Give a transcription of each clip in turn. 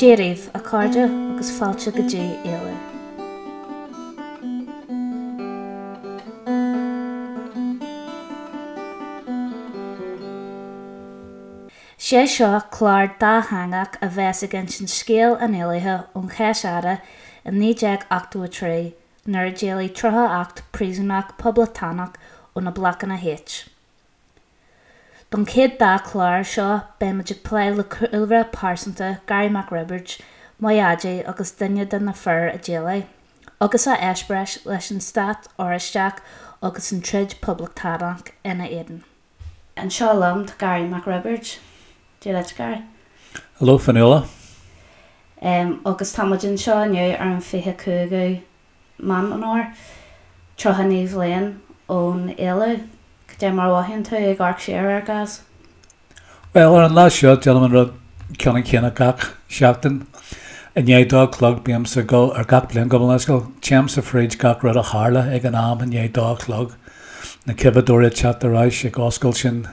Dia daoibh, a chairde, agus fáilte go dtí Éalú. Sé seo clár dátheangach a bheas ag insint scéal an éalaithe ón Cheis Fhada i 1983 nuair a d'éalaigh 38 príosúnach poblachtánach ó na Blocanna H. Don chéad dá chlár seo beimid ag plé le cúlra pearsanta Garry Mac Roibeaird, mo dhaidí agus duine de na fir a d'éalaigh, agus a eispéireas leis an Stát Oráisteach agus an troid poblachtánach ina éadan. Anseo liom tá Garry Mac Roibeaird. Dia duit, Garry. Hello, Fionnuala. Agus tá muid anseo inniu ar an 25ú Meán Fómhair, 39 bhliain ón éalú. Cad é mar a mhothaíonn tú ag amharc siar air, Gaz? Bhuel, ar an lá seo, déanaim an rud ceannann céanna gach seachtain. I ndiaidh dó a chlog, bímse ag dul, ar gach bliain, gabh mo leithscéal, téimse fríd gach rud a tharla ag an am i ndiaidh dó a chlog, na coimheadóirí ag teacht ar ais, ag oscailt sin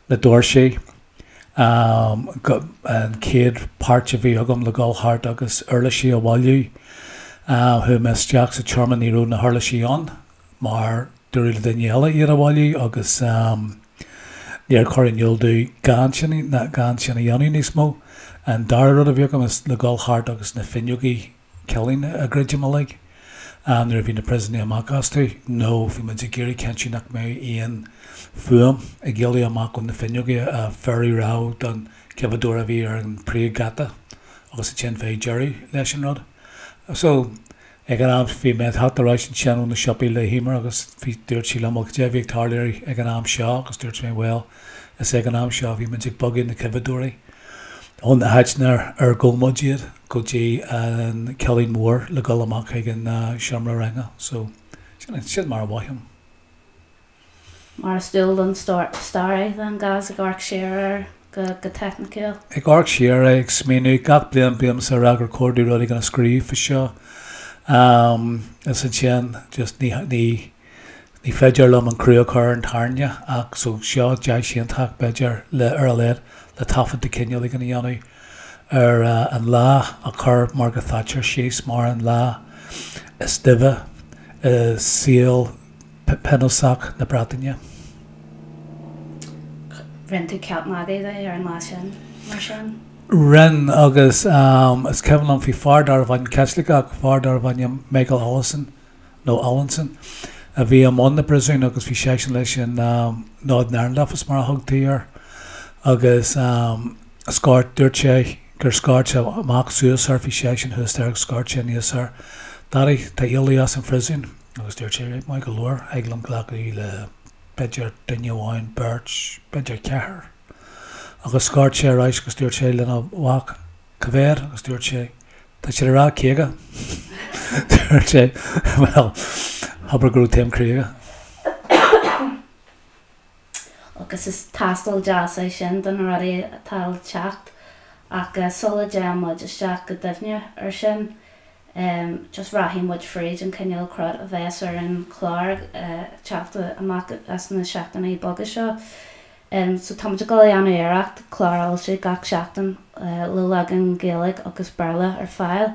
na doirsí, an chéad páirt a bhí agam le dhul thart agus uirlisí a bhailiú. Chuaigh mé isteach sa tseomra, ní raibh na huirlisí ann mar dúradh le duine eile iad a bhailiú agus níor cuireadh in iúl domh gan sin, gan sin a dhéanamh níos mó. An dara rud a bhí agam is le dhul thart agus na fuinneogaí cillín a dhruidim uilig nuair a bhí na príosúnaigh amach astu nó bhí muid ag iarraidh cinntiú nach mbeadh aon fuaim ag éalú amach ó na fuinneogaí a thabharfadh rabhadh don choimheadóir a bhí ar an príomhgheata agus ansin bheadh deireadh leis an rud. So, ag an am bhí mé ag teacht ar ais ansin ó na siopaí le hEmer agus bhí, dúirt sí liom, bhuel cad é a bhí ag tarlú ag an am seo agus dúirt mé bhuel is ag an am seo a bhí muid ag bogadh na coimheadóirí. Ón áit ar ghabh muid iad go dtí an cillín mór le dhul amach chuig an seomra ranga. So, sin, sin mar a mhothaím. Mar is dual don staraí, then, Gaz, ag amharc siar air go, go teicniciúil. Ag amharc siar air, ag smaoineamh, gach bliain bímse ag rá gur chóir domh rud éigin a scríobh faoi seo. Is ansin, just ní, ní, Ní féidir liom an crú a chur ar an tairne ach so seo deis iontach, b'fhéidir, le, ar a laghad, le taifead de chineál éigin a dhéanamh ar an lá a chur mar go thaitear síos mar an lá is duibhe i saol pionósach na Breataine. Rinne tú ceap magaidh de ar an lá sin, mar sin? Rinne, agus is cuimhin liom, bhí fear darbh ainm, Caitliceach, fear darbh ainm Michael Allison, nó Allinson, a bhí i mbun na bpríosún agus bhí seisean leis an Northern Ireland Office mar a thugtaí air agus scairt, dúirt sé gur scairt sé amach suas air, bhí seisean thuas there agus scairt sé aníos air, Daddy, tá éalú as an phríosún agus dúirt sé, right, maith go leor, thig liom glacadh le b'fhéidir duine amháin, beirt, b'fhéidir ceathrar. Agus scairt sé ar ais agus dúirt sé lena mhac, Cá mhéad? Agus dúirt sé, Tá siad ag rá 50. Dúirt sé, Bhuel, abair go raibh taom croí aige. Agus is tástáil deas é sin do na rudaí atá le teacht. Ach sula dtéann muid isteach go doimhne ar sin, just rachaidh muid fríd an cineál crud a bheas ar an chlár ag teacht amach as na seachtainí beaga seo. So tá muid ag dul a dhéanamh iarracht clár a fhoilsiú gach seachtain le leagan Gaeilge agus Béarla ar fáil.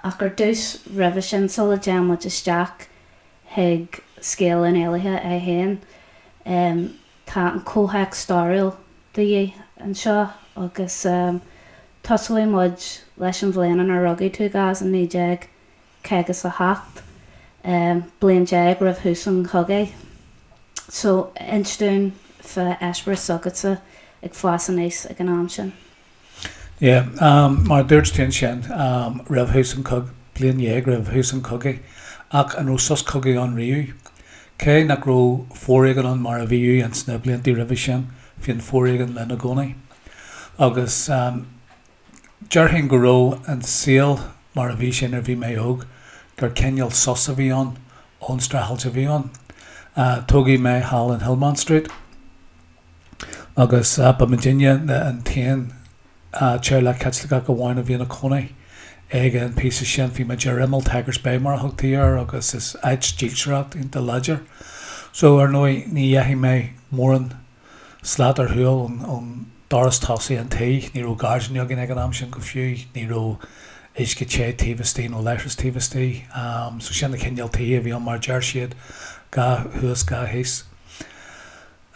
Ach ar dtús, roimhe sin, sula dtéann muid isteach chuig scéal an éalaithe é féin, tá an comhthéacs stairiúil de dhíth anseo agus tosóidh muid leis an bhliain inar rugadh tú, Gaz, i 1957, bliain roimh thús an chogaidh. So, inis dúinn fá eispéireas s'agatsa ag fás aníos ag an am sin. Yeah, mar a dúirt tú ansin, roimh thús an chogaidh, bliain dhéag roimh thús an chogaidh, ach an raibh sos cogaidh ann riamh? Cé nach raibh foréigean ann mar a bhíodh ins na blianta roimhe sin, bhí an foréigean linn i gcónaí. Agus déarfainn go raibh an saol mar a bhí sé nuair a bhí mé óg, gur cineál sos a bhí ann ón streachailt a bhí ann. Tógadh mé thall in Hillmount Street agus ba muidinne an t-aon teaghlach Caitliceach amháin a bhí ina cónaí ag an píosa sin. Bhí muid ar imeall Tigers Bay mar a thugtaí air agus is áit dílseoireacht iontach láidir. So ar ndóigh ní dheachaigh mé mórán slat ar shiúl ón. doras tosaigh an tí, ní raibh gairdín againn ag an am sin go fiú, ní raibh uisce te taobh istigh nó leithreas taobh istigh. So sin an cineál tithe a bhí ann mar a deir siad, 2 thuas, 2 thíos.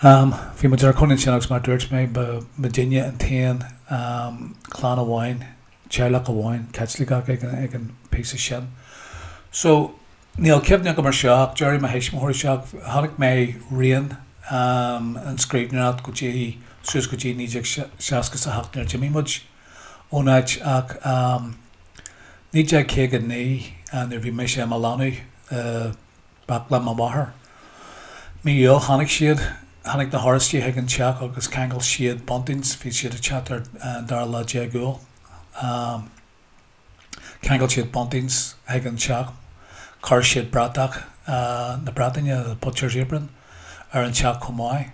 Bhí muid inár gcónaí ansin agus mar a dúirt mé, ba muidinne an t-aon chlann amháin, teaghlach amháin Caitliceach ag an bpíosa sin. So, níl cuimhne agam ar seo ach déarfaidh mo thuismitheoirí seo, chonaic mé rian an scríbhneoireacht go dtí, suas go dtí 1968 nuair a d'imigh muid ón áit ach 1959 nuair a bhí mise i mo leanbh i baclainn mo mháthar. Mí Iúil tháinig siad, tháinig na hOráistigh chuig an teach agus cheangail siad buntings, bhí siad ag teacht ar an dara lá déag Iúil. Cheangail siad buntings chuig an teach, chuir siad bratach na Breataine, the butcher's apron, ar an teach chomh maith.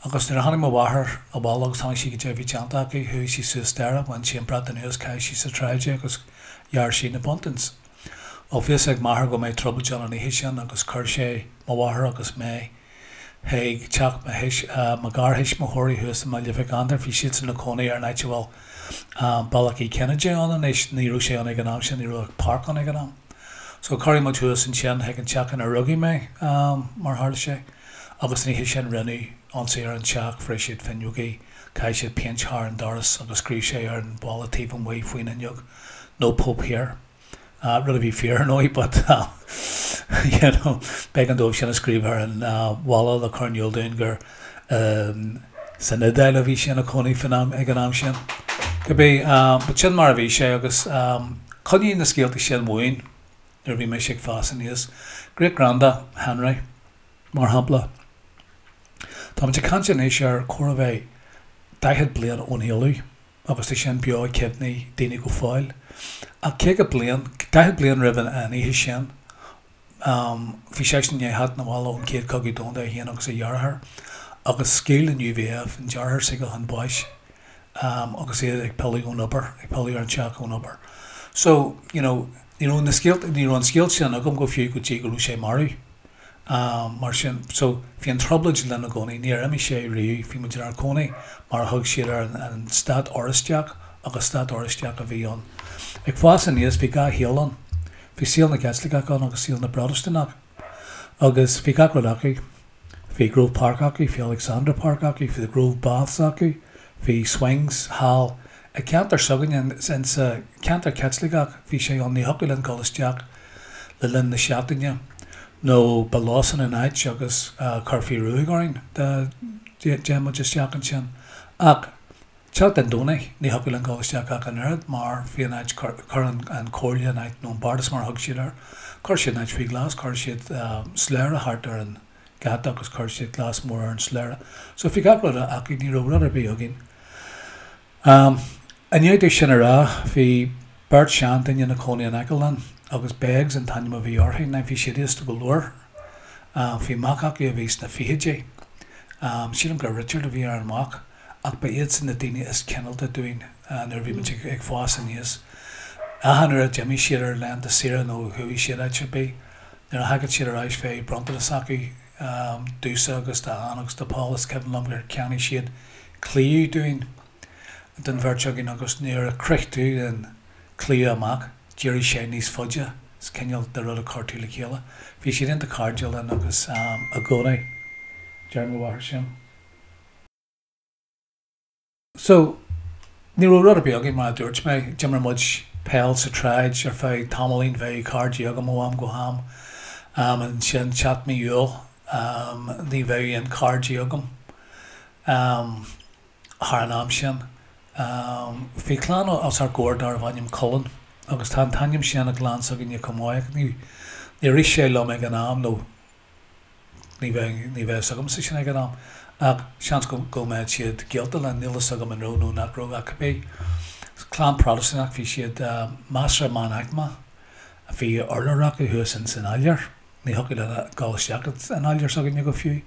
Agus nuair a tháinig mo mháthair abhaile agus chonaic sí goidé a bhí déanta acu, chuaigh sí suas staighre, bhain sí an brat anuas, chaith sí sa tsráid é agus ghearr sí na buntings. Bhuel, bhí fhios ag m'athair go mbeadh trioblóid ann an oíche sin agus chuir sé mo mháthair agus mé chuig teach mo thuis, mo gharthuismitheoirí thuas i mBaile Mhic Andair. Bhí siadsan ina cónaí ar an áit a bhfuil Bealach Uí Chinnéide ann anois. Ní raibh sé ann ag an am sin, ní raibh ach páirc ann ag an am. So cuireadh muid thuas ansin chuig an teach ina rugadh mé, mar a tharla sé. Agus an oíche sin rinneadh ionsaí ar an teach, bhris siad fuinneogaí, chaith siad péint thar an doras agus scríobh sé ar an bhalla taobh amuigh faoin fhuinneog, 'No Pope here'. Rud a bhí fíor ar ndóigh but you know b'éigean dóibh sin a scríobh ar an bhalla le cur in iúl dúinn gur san Iodáil a bhí sé ina chónaí faoin am, ag an am sin. Cibé, but sin mar a bhí sé agus choinnigh na scéalta sin uainn nuair a bhí mise ag fás aníos. Great Granda Henry, mar shampla. Táimid ag caint anois ar chóir a bheith 40 bliain ón éalú. agus tá sin beo i gcuimhní daoine go fóill. Ach 50 bliain, 40 bliain roimh an oíche sin, bhí seisean i ndiaidh theacht 'na bhaile ón Chéad Chogadh Domhanda, é féin agus a dheartháir, agus scaoil an UVF an deartháir s'aige chun báis agus iad ag pilleadh ón obair, ag pilleadh ar an teach ón obair. So, you know, ní raibh na scéalta, ní raibh an scéal sin agam go fiú go dtí go raibh sé marbh. Mar sin, so, bhí an trioblóid linn i gcónaí, níor imigh sé riamh, bhí muid inár gcónaí mar a thug siad air, an Stát Oráisteach, agus Stát Oráisteach a bhí ann. Ag fás aníos, bhí 2 shaol ann. Bhí saol na gCaitliceach ann agus saol na bProtastúnach. Agus bhí gach rud acu. Bhí Grove Park acu, bhí Alexandra Park acu, bhí the Grove Baths acu, bhí swings thall i gceantar s'againne, insa cheantar Caitliceach, bhí sé ann, ní thiocfadh linn dul isteach le linn na seachtaine nó ba lósan an áit agus chuirfí ruaig orainn dá dtéadh muid isteach ansin. Ach teacht an Domhnaigh ní thiocfadh linn dul isteach ach an oiread mar bhí an áit, chuir an chomhairle an áit, nó an bardas mar a thug siad air, chuir siad an áit faoi ghlas, chuir siad slabhra thart ar an gheata agus chuir siad glas mór ar an slabhra. So bhí gach rud acu, ní raibh rud ar bith againn. I ndiaidh domh sin a rá, bhí beirt seanduine ina cónaí in aice linn, agus Beggs an t-ainm a bhí orthu. Now bhí siad aosta go leor. Bhí mac acu a bhí sna fichidí. Sílim gur Richard a bhí ar an mhac, ach ba iadsan na daoine is cineálta dúinn nuair a bhí muid ag fás aníos. Achan uair a d'imigh siad ar laethanta saoire nó chuaigh siad áit ar bith, nuair a thagadh siad ar ais bheadh bronntanas acu domhsa agus d'Ann agus do Paul. Is cuimhin liom gur cheannaigh siad claíomh dúinn, don bheirt againn agus nuair a chroith tú an claíomh amach d'éirigh sé níos faide, is cineál de rud a chuir tú le chéile. Bhí siad iontach cairdiúil linn agus i gcónaí deir mo mháthair sin. So, ní raibh rud ar bith againn mar a dúirt mé, d'imir muid peil sa tsráid ar feadh tamaillín, bheadh cairde agam ó am go ham, ansin teacht mí Iúil ní bheadh aon cairde agam. Thar an am sin, bhí clann os ár gcomhair darbh ainm Cullen, agus tá an t-ainm sin i gclann s'againne chomh maith, ach níor rith sé liom ag an am, nó ní bheadh ní bheadh fhios agamsa sin ag an am, ach seans go go mbeadh siad gaolta linn, níl fhios agam an raibh nó nach raibh, ach cibé. Clann Protastúnach, bhí siad measartha meánaicmeach, bhí urlár acu thuas ins an áiléar. Ní thiocfadh linn dul isteach san áiléar s'againne go fiú.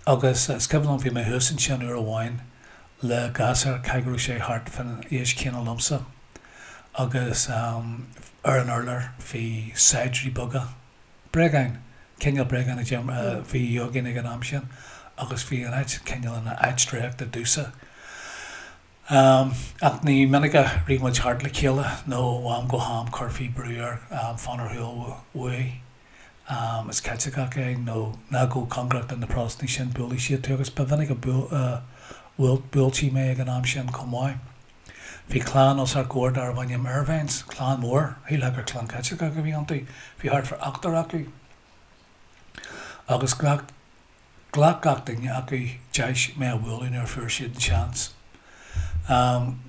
Agus is cuimhin liom, bhí mé thuas ansin uair amháin le gasúr, caithfidh go raibh sé thart fán aois chéanna liomsa, agus ar an urlár bhí saighdiúirí beaga, bréagáin, cineál bréagáin a bhí againn ag an am sin, agus bhí an áit cineál ina áit draíochta domhsa. Ach ní minic a rith muid thart le chéile nó ó am go ham chuirfí brú air fan ar shiúl uaidh. Is Caitliceach é nó ná gabh cóngarach do na Protastúnaigh sin, buailfidh siad tú agus ba mhinic a bhuailtí mé ag an am sin chomh maith. Bhí clann os ár gcomhair darbh ainm Irvines, clann mhór, shílfeá gur clann Caitliceach a bhí iontu, bhí thart fá ochtar acu agus ghlac Ghlac gach duine acu deis mé a bhualadh nuair a fuair siad an seans.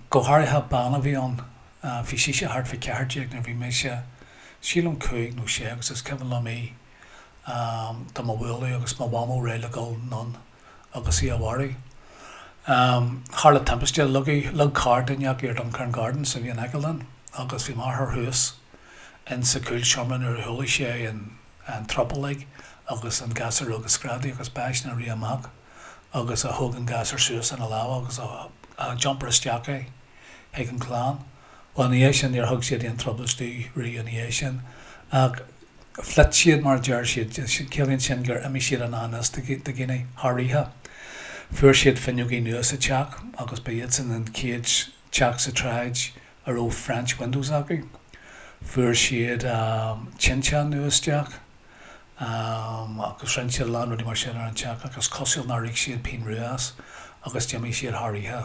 Go háirithe bean a bhí ann, bhí sise thart fá 14 nuair a bhí mise, sílim 5 nó 6 agus is cuimhin liom í do mo bhualadh agus mo mhamó réidh le dul anonn agus í a mharú. Tharla timpiste, leag carr duine acu ar Duncairn Gardens a bhí in aice linn agus bhí m'athair thuas insa chúlseomra nuair a chuala sé an an trioblóid agus an gasúr óg ag screadaigh agus b'eisean a rith amach agus a thóg an gasúr suas ina lámha agus a d'iompair isteach é chuig an chlann. Bhuel ina dhiaidh sin níor thug siad aon trioblóid domh riamh ina dhiaidh sin ach phléit siad mar a deir siad, ciallaíonn sin gur imigh siad i ngan fhios do dhaoine thar oíche. Fuair siad fuinneogaí nua sa teach agus ba iadsan an chéad teach sa tsráid a raibh French windows acu. Fuair siad tinteán nua isteach agus rinne siad a lán rudaí mar sin ar an teach ach is cosúil nár íoc siad pingin rua as agus d'imigh siad thar oíche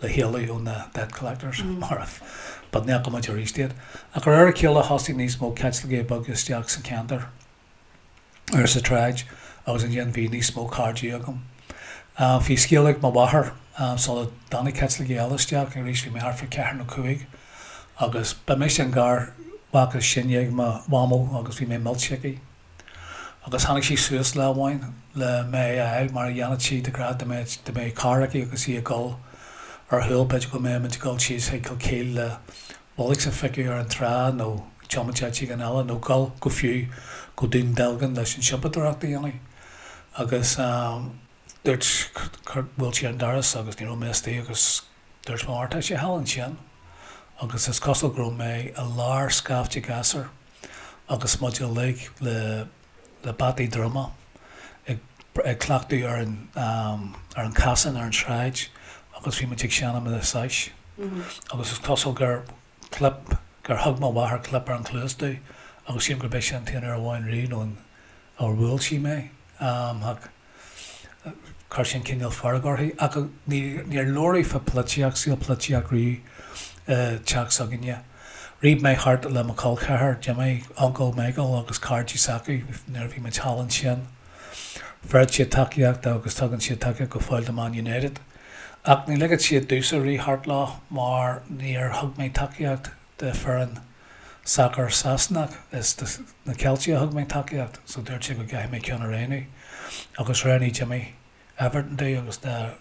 le héalú ó na debt collectors mar but ní fhaca muid arís iad. Ach de réir a chéile thosaigh níos mó Caitlicigh beaga isteach sa cheantar. ar sa tsráid agus ansin bhí níos mó cairde agam. Bhí scéal ag mo mháthair sula dtáinig Caitlicigh eile isteach, arís bhí mé thart fá cheathair nó cúig agus ba mise an garmhac is sine ag mo mhamó agus bhí mé millte aici. Agus tháinig sí suas lá amháin le mé a fháil mar a dhéanfadh sí de ghnáth dá mbeadh dá mbeadh carr aici agus í ag dul ar shiúl b'fhéidir go mbeadh muid ag dul síos chuig Kilkeel le bullocks a phiocadh ar an trá nó tiomáint áit éigin eile nó dul go fiú go Dún Dealgan leis an siopadóireacht a dhéanamh agus dúirt bhuail sí ar an doras agus ní raibh mé istigh agus dúirt mo mháthair tá sé thall ansin agus is cosúil go raibh mé i lár scaifte gasúr agus muid uilig le le bataí druma ag ag cleachtadh ar an ar an casán ar an tsráid agus bhí muid ag seinm na sais agus is cosúil gur clip gur thug mo mháthair clip ar an chluas domh agus sílim gurb é sin an t-aon uair amháin riamh nó an ar bhuail sí mé ach chuir sin cineál fearg uirthi ach níor labhradh fá polaitíocht, saol polaitíocht riamh i dteach s'againne. Rith mé thart le mo chol ceathar, Jimmy, uncail Michael agus cairde s'acu nuair a bhí muid thall ansin. Bheireadh siad tacaíocht agus tugann siad tacaíocht go fóill do Man United. Ach ní ligeadh siad domhsa rith thart leo mar níor thug mé tacaíocht do foireann sacair Sasanach, is do na Ceiltigh a thug mé tacaíocht so dúirt siad go gcaithfidh mé ceann a roghnú agus roghnaigh Jimmy Everton domh agus dá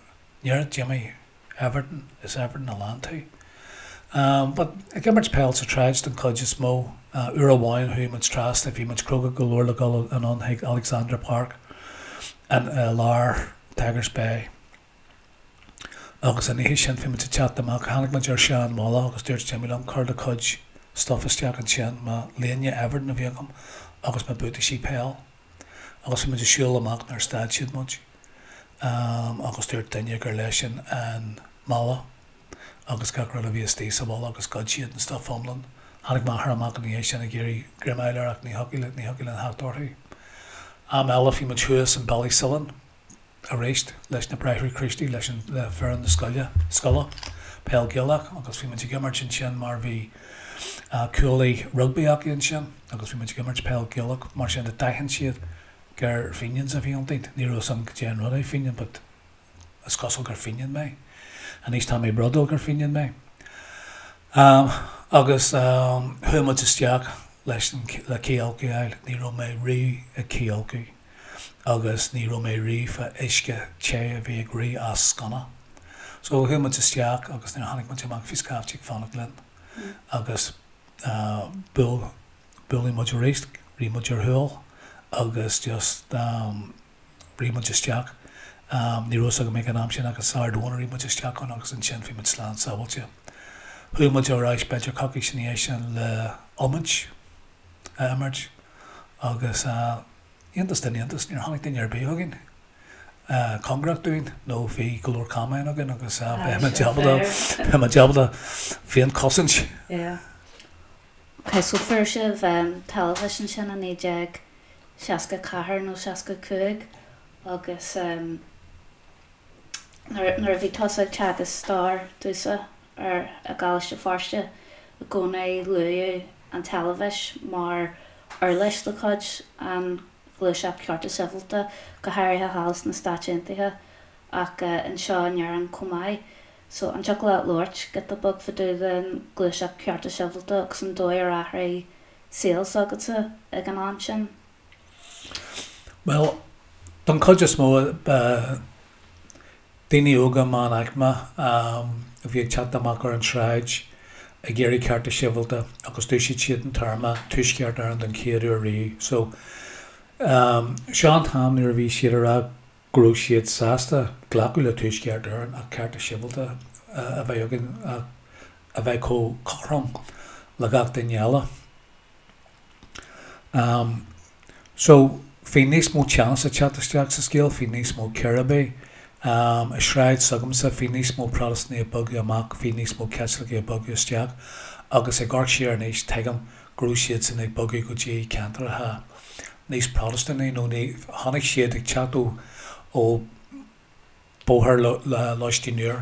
ndéarfadh Jimmy Everton, is Everton a lean tú. But ag imirt peil sa tsráid don chuid is mó, uair amháin chuaigh muid trasna, bhí muid cróga go leor le dul anonn chuig Alexandra Park in i lár Tigers Bay. Agus an oíche sin bhí muid ag teacht amach, tháinig muid ar sean mhála agus dúirt Jimmy liom, cuir do chuid stuff isteach ansin, mo léine Everton a bhí agam agus mo buataisí peil. Agus bhí muid ag siúl amach nuair a stad siad muid agus dúirt duine gur leisean an mála agus gach rud a bhí istigh sa mhála agus ghoid siad an stuff iomlán. Tháinig m'athair amach ina dhiaidh sin ag iarraidh greim a fháil air ach ní thiocfadh ní thiocfadh linn theacht orthu. Am eile bhí muid thuas in Ballysillan. arís leis na Bráithre Críostaí, leis an, le foireann na scoile, scoile, peil Gaelach agus bhí muid ag imirt ansin mar bhí cuaillí rugbaí acu ansin agus bhí muid ag imirt peil Gaelach mar sin de d'aithin siad gur Fenians a bhí iontainn. Ní raibh fhios agam cad é an rud é Fenian but is cosúil gur Fenian mé. Anois tá mé brodúil gur Fenian mé. Agus chuaigh muid isteach leis an, le cith a fháil, ní raibh mé riamh ag cithfholcadh. agus ní raibh mé riamh fá uisce te a bhí ag rith as sconna. So chuaigh muid isteach agus nuair a tháinig muid amach bhí scaifte ag fanacht linn agus buail, buaileadh muid arís, rith muid ar shiúl agus just rith muid isteach. Ní raibh fhios agam ag an am sin ach is Ard Eoin a rith muid isteach ann agus ansin bhí muid slán sábháilte. Chuaigh muid ar ais b'fhéidir coicís ina dhiaidh sin le iomáint a imirt agus iontas den iontas, níor tháinig duine ar bith chugainn. Cóngarach dúinn nó bhí go leor camáin againn agus bheadh muid ábalta, bheadh muid ábalta féinchosaint. Yeah. Ok, so fuair sibh teilifís ansin i 1964 nó 65 agus nuair a bhí tusa ag teagasc stair domhsa ar i gColáiste Feirste i gcónaí luadh an teilifís mar uirlis de chuid an ghluaiseacht cearta sibhialta, go háirithe thall sna Stáit Aontaithe ach anseo in Éirinn chomh maith. So, an dtiocfadh leat labhairt giota beag fá dtaobh den ghluaiseacht cearta sibhialta agus an dóigh ar athraigh saol s'agatsa ag an am sin? Bhuel, don chuid is mó, ba daoine óga meánaicme a bhí ag teacht amach ar an tsráid ag iarraidh cearta sibhialta agus d'úsáid siad an téarma Tuaisceart Éireann don chéad uair riamh. So, seo an t-am nuair a bhí siad ag rá go raibh siad sásta glacadh le Tuaisceart Éireann ach cearta sibhialta a bheith againn ach a bheith chomh cothrom le gach duine eile. So, bhí níos mó teannas ag teacht isteach sa scéal, bhí níos mó círéibí. I sráid s'agamsa, bhí níos mó Protastúnaigh ag bogadh amach, bhí níos mó Caitlicigh ag bogadh isteach agus ag amharc siar anois, tuigim go raibh siadsan ag bogadh go dtí ceantracha níos Protastúnaí nó ní, chonaic siad ag teacht ó, ó, Bóthar Lóistín Úr.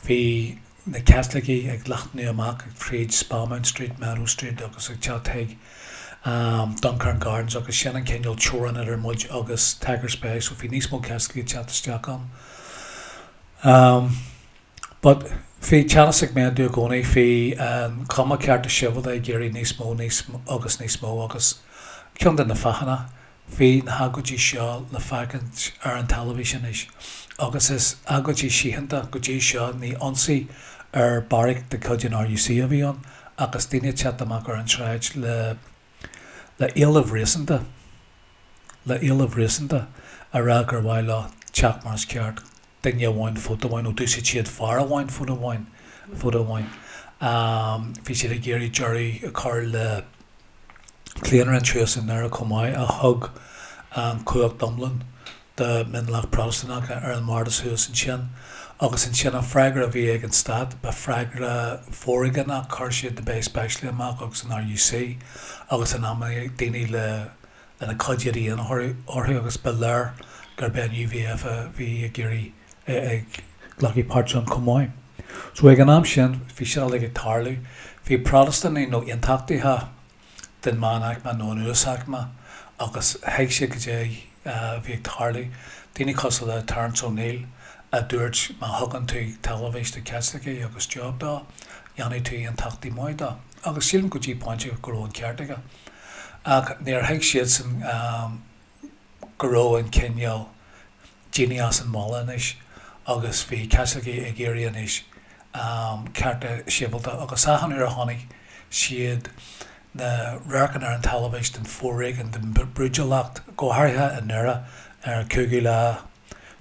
Bhí na Caitlicigh ag leathnú amach tríd Spamount Street, Meadow Street agus ag teacht chuig Duncairn Gardens agus sin an cineál teorainn idir muid agus Tigers Bay so bhí níos mó Caitlicigh ag teacht isteach ann. But bhí teannas ag méadú i gcónaí, bhí an chuma cearta sibhialta ag iarraidh níos mó, níos agus níos mó agus ceann de na fáthanna Bhí na hagóidí seo le feiscint ar an teilifís anois agus is agóidí síochánta go dtí seo, ní ionsaí ar beairic de chuid an RUC a bhí ann ach is daoine ag teacht amach ar an tsráid le le éilimh réasúnta, le éilimh réasúnta a rá gur mhaith leo teach mar is ceart, duine amháin vóta amháin nó d'úsáid siad fear amháin vóta amháin, vóta amháin. Bhí siad ag iarraidh deireadh a chur le claonadh an thuas i nDoire chomh maith, a thug an chumhacht iomlán do mhionlach Protastúnach ar an mbardas thuas ansin. Agus ansin an freagra a bhí ag an stát, ba freagra foréigeanach, chuir siad na Bay Specialaigh amach agus an RUC agus in amanna daoine le lena cuid éadaí orthu agus ba léir gurb é an UVF a bhí ag iarraidh ag glacadh páirt ann chomh maith. So ag an am sin bhí sin uilig ag tarlú. Bhí Protastúnaigh nó aontachtaithe den meánaicme nó an uasaicme agus thuig siad goidé a bhí ag tarlú. Daoine cosúil le Terence O'Neill a dúirt má thugann tú teilifís do Chaitlicigh agus job dó, dhéanfaidh tú aontachtaí maith dó. Agus sílim go dtí pointe go raibh an ceart aige. Ach níor thuig siadsan go raibh an cineál daoine as an mbaile anois agus bhí Caitlicigh ag iarraidh anois cearta sibhialta agus achan uair a chonaic siad na radharcanna ar an teilifís den foréigean, den brúidiúlacht, go háirithe i nDoire ar an 5ú lá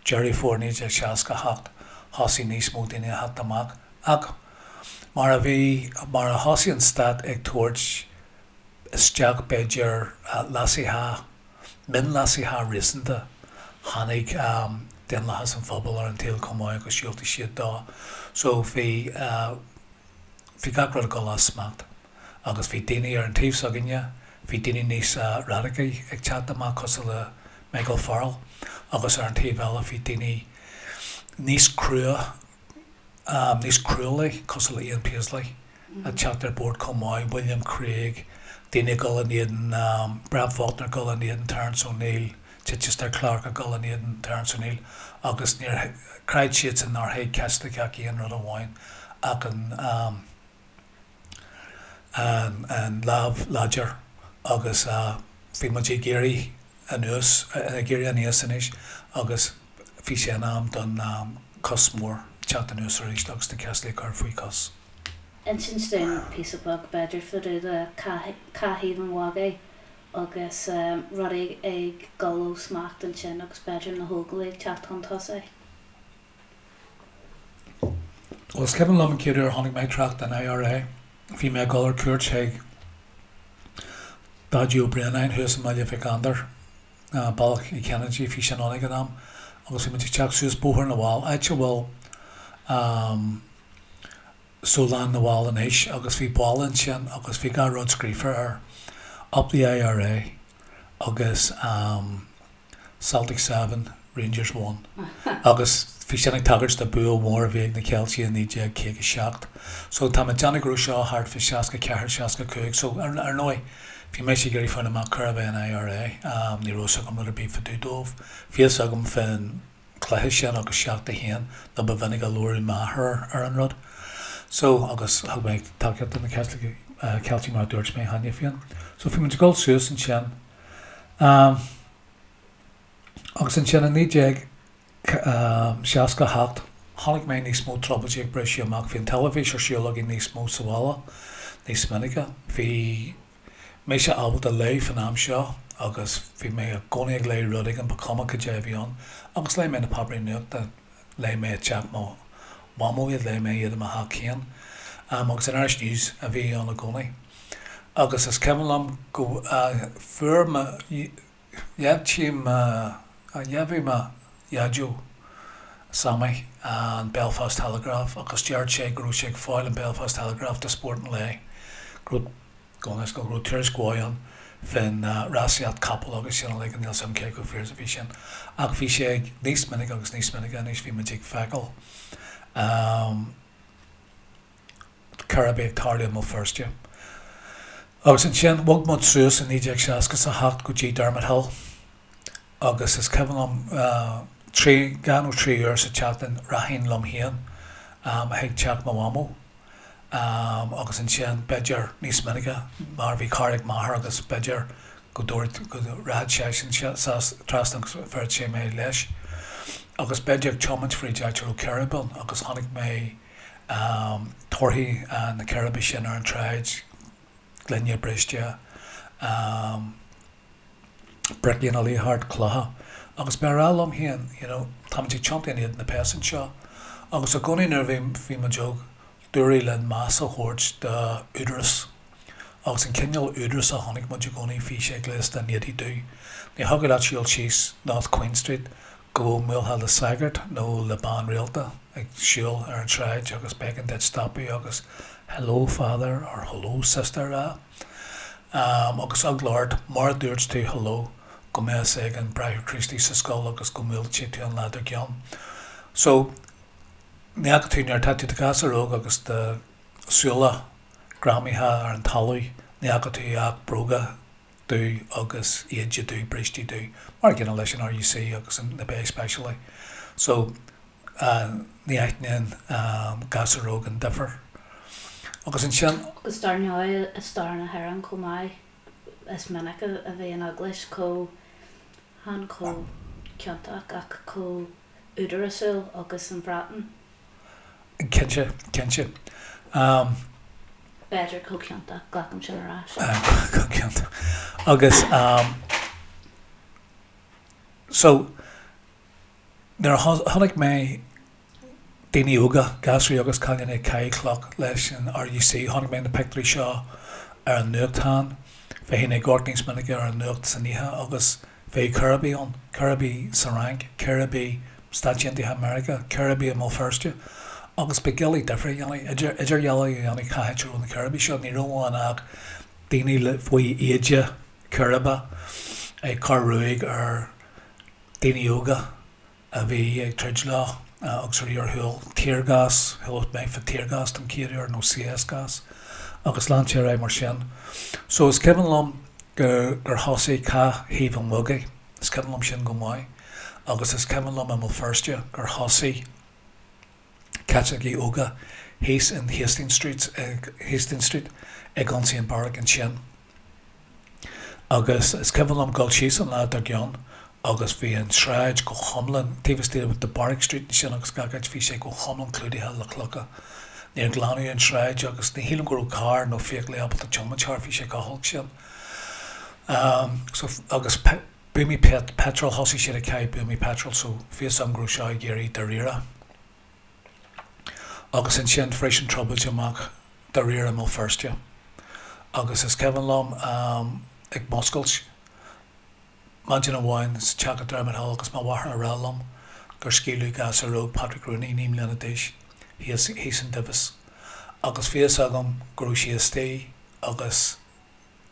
Deireadh Fómhair 1968, thosaigh níos mó daoine a theacht amach. Ach mar a bhí, mar a thosaigh an stát ag tabhairt isteach b'fhéidir leasuithe, mionleasuithe réasúnta, tháinig Daonlathas an Phobail ar an tsaol chomh maith agus dhiúltaigh siad dó. So bhí, bhí gach rud ag dul as smacht agus bhí daoine ar an taobh s'againne, bhí daoine níos radacaí ag teacht amach cosúil le Michael Farrell agus ar an taobh eile bhí daoine níos crua, níos cruálaí, cosúil le Ian Paisley, ag teacht ar bord chomh maith, William Craig, daoine ag dul in éadan, Brett Faulkner ag dul in éadan Terence O'Neill, Chichester Clark ag dul in éadan Terence O'Neill agus níor, chreid siadsan nár thuig Caitliceach aon rud amháin ach an, an lámh láidir agus bhí muid ag éirí anuas, ag éirí aníos anois agus bhí sé in am don cos mór teacht anuas arís agus na Caitlicigh a chur faoi chos. Insint dúinn píosa beag b'fhéidir fá dtaobh de Cath Thaobh an Mhagaidh agus rudaí ag dul ó smacht ansin agus b'fhéidir na hÓglaigh ag teacht chun tosaigh. Bhuel, is cuimhin liom an chéad uair a chonaic mé trácht den IRA, bhí mé ag dul ar cuairt chuig Daidí Ó Braonáin thuas i mBaile Mhic Andair, Bealach Uí Chinnéide, bhí sin ann ag an am. Agus bhí muid ag teacht suas Bóthar na bhFál, áit a bhfuil Sólann na bhFál anois agus bhí balla ansin agus bhí gach rud scríofa air, Up the IRA agus Celtic 7, Rangers 1. Agus bhí sin ag tagairt do bua mhór a bhí ag na Ceiltigh i 1957. So tá mé ag déanamh go raibh seo thart fá 64, 65. So ar ndóigh bhí mise ag iarraidh fáil amach cérbh é an IRA. Ní raibh fhios agam rud ar bith fá dtaobh dóibh. Bhí fhios agam fén cluiche sin agus 7-1 nó ba mhinic a labhradh m'athair ar an rud. So agus thug mé tacaíocht do na Ceiltigh mar a dúirt mé cheana féin. So bhí muid ag dul suas ansin. Agus ansin i 1968 chonaic mé níos mó trioblóidí ag briseadh amach. Bhí an teilifís ar siúl againn níos mó sa bhaile, níos minice. Bhí mise ábalta léamh fan am seo agus bhí mé i gcónaí ag léamh rud éigin, ba chuma cad é a bhí ann. Agus léigh mé na páipéirí nuachta, léigh mé i dteach mo mhamó iad, léigh mé iad i mo theach féin. Agus an Irish News a bhí ann i gcónaí. Agus is cuimhin liom go fuair mo Dheimhnigh mo, dheimhnigh mo Dhaideo, Sammy, an Belfast Telegraph agus dúirt sé go raibh sé ag fáil an Belfast Telegraph do spórt an lae, go raibh, go raibh, go raibh tuairisc mhaith ann fén rásaíocht capall agus sin uilig, níl 's agam cé chomh fíor is a bhí sin ach bhí sé ag níos minice agus níos minice anois bhí muid ag feiceáil. Círéibí ag tarlú i mBéal Feirste. Agus ansin bhog muid suas i 1967 go dtí Dermot Hill agus is cuimhin liom trí, dhá nó trí uair sa tseachtain rachainn liom féin chuig teach mo mhamó agus ansin b'fhéidir níos minice mar bhí carr ag m'athair agus b'fhéidir go dtabharfadh, go rachadh seisean trasna agus bhéarfadh sé mé leis. Agus b'fhéidir ag tiomáint fríd áit a raibh círéib ann agus chonaic mé torthaí na círéibe sin ar an tsráid, gloine briste, bricí ina luí thart, clocha. Agus b'é a rá liom féin, you know, táimid ag tiontú in éadan na péas anseo. Agus i gcónaí nuair a bhí, bhí muid óg, dúradh linn meas a thabhairt d'údarás. Agus an cineál údaras a chonaic muid i gcónaí, bhí sé gléasta in éadaí dubh. Ní thiocfadh leat siúl síos North Queen Street go mbuailfeá le sagart nó le bean rialta ag siúl ar an tsráid agus b'éigean duit stopadh agus 'Hello Father' or 'Hello Sister' a rá. Agus eagla ort, mura dúirt tú 'hello' go mbeadh fhios ag an Bráithre Críostaí sa scoil agus go mbuailfí tú an lá dár gcionn. So, ní fhaca tú, nuair atá tú i do ghasúr óg agus do shúile greamaithe ar an talamh, ní fhaca tú ach bróga dubh agus éide dubh, brístí dubh, mar a gcéanna leis an RUC agus na Bay Speisialaigh. So, ní aithníonn gasúr óg an difear. Agus ansin. Agus dar ndóigh i stair na hÉireann chomh maith, is minic a bhí an Eaglais chomh, chan chomh ciontach ach chomh údarásúil agus an Bhreatain. Cinnte, cinnte. B'fhéidir chomh ciontach, glacaim sin ar ais. Chomh ciontach. Agus so, nuair a chonaic mé daoine óga, gasraí agus cailíní ag caitheamh cloch leis an RUC, chonaic mé na pictiúirí seo ar an nuachtán, bheinn ag amharc níos minice ar an nuacht san oíche agus Bheadh círéibí ann, círéibí sa Fhrainc, círéibí Stáit Aontaithe Meiriceá, círéibí i mBéal Feirste. Agus ba doiligh difear a dhéanamh, idirdhealú a dhéanamh cá háit a raibh na círéibí seo. Ní raibh ann ach daoine le faoi éide círéibe ag cur ruaig ar daoine óga. a bhí ag troid leo agus a bhí ar shiúl. Tear gas, chuala mé fá tear gas don chéad uair nó CS gas agus lean sé ar aghaidh mar sin. So is cuimhin liom gur gur thosaigh Cath Thaobh an Bhogaigh, is cuimhin liom sin go maith agus is cuimhin liom i mBéal Feirste gur thosaigh Caitlicigh óga thíos in Hastings Street, Hastings Street ag ionsaí an beairic ansin. Agus is cuimhin liom dul síos an lá dár gcionn agus bhí an tsráid go hiomlán, taobh istigh de Barrack Street ansin agus gach áit, bhí sé go hiomlán clúdaithe le clocha. Níor glanadh an tsráid agus ní shílim go raibh carr nó feithiclí ábalta tiomáint thart, bhí sé chomh holc sin. So, agus buamaí peitril, thosaigh siad ag caitheamh buamaí peitril so bhí fhios agam go raibh seo ag éirí dáiríre. Agus ansin bhris an trioblóid amach dáiríre i mBéal Feirste. Agus is cuimhin liom ag muscailt maidin amháin sa teach i Dermot Hill agus mo mháthair a rá liom. gur scaoileadh gasúr óg, Patrick Rooney, 9 mbliana d'aois, thíos thíos in Divis agus bhí fhios agam go raibh sí istigh agus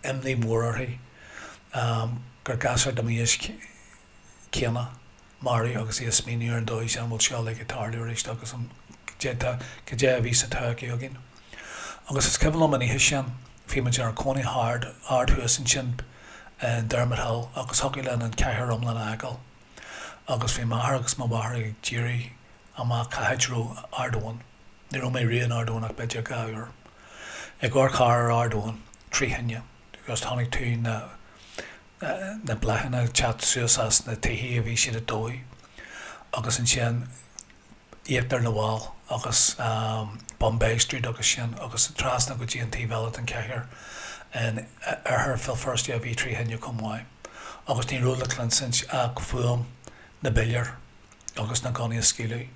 imní mhór uirthi gur gasúr de m'aois céanna maraithe agus í ag smaoineamh ar an dóigh sin an bhfuil seo uilig ag tarlú arís agus an cad é a bhí sa todhchaí againn. Agus is cuimhin liom an oíche sin, bhí muid inár cónaí thart, ard thuas ansin in Dermot Hill agus thiocfadh linn an cathair iomlán a fheiceáil agus bhí m'athair agus mo mháthair ag díriú amach cá háit a raibh Ard Eoin. Ní raibh mé riamh in Ard Eoin ach b'fhéidir 2 uair. Ag amharc thar ar Ard Eoin, trí thine, agus chonaic tú na na bláthanna ag teacht suas as na tithe a bhí siad ag dóigh agus ansin íochtar na bhFál agus bun Bay Street agus sin agus trasna go dtí an taobh eile den chathair in oirthear Bhéal Feirste a bhí trí thine chomh maith agus ní raibh le cluinsint ach fuaim na bpiléar agus na gunnaí ag scaoileadh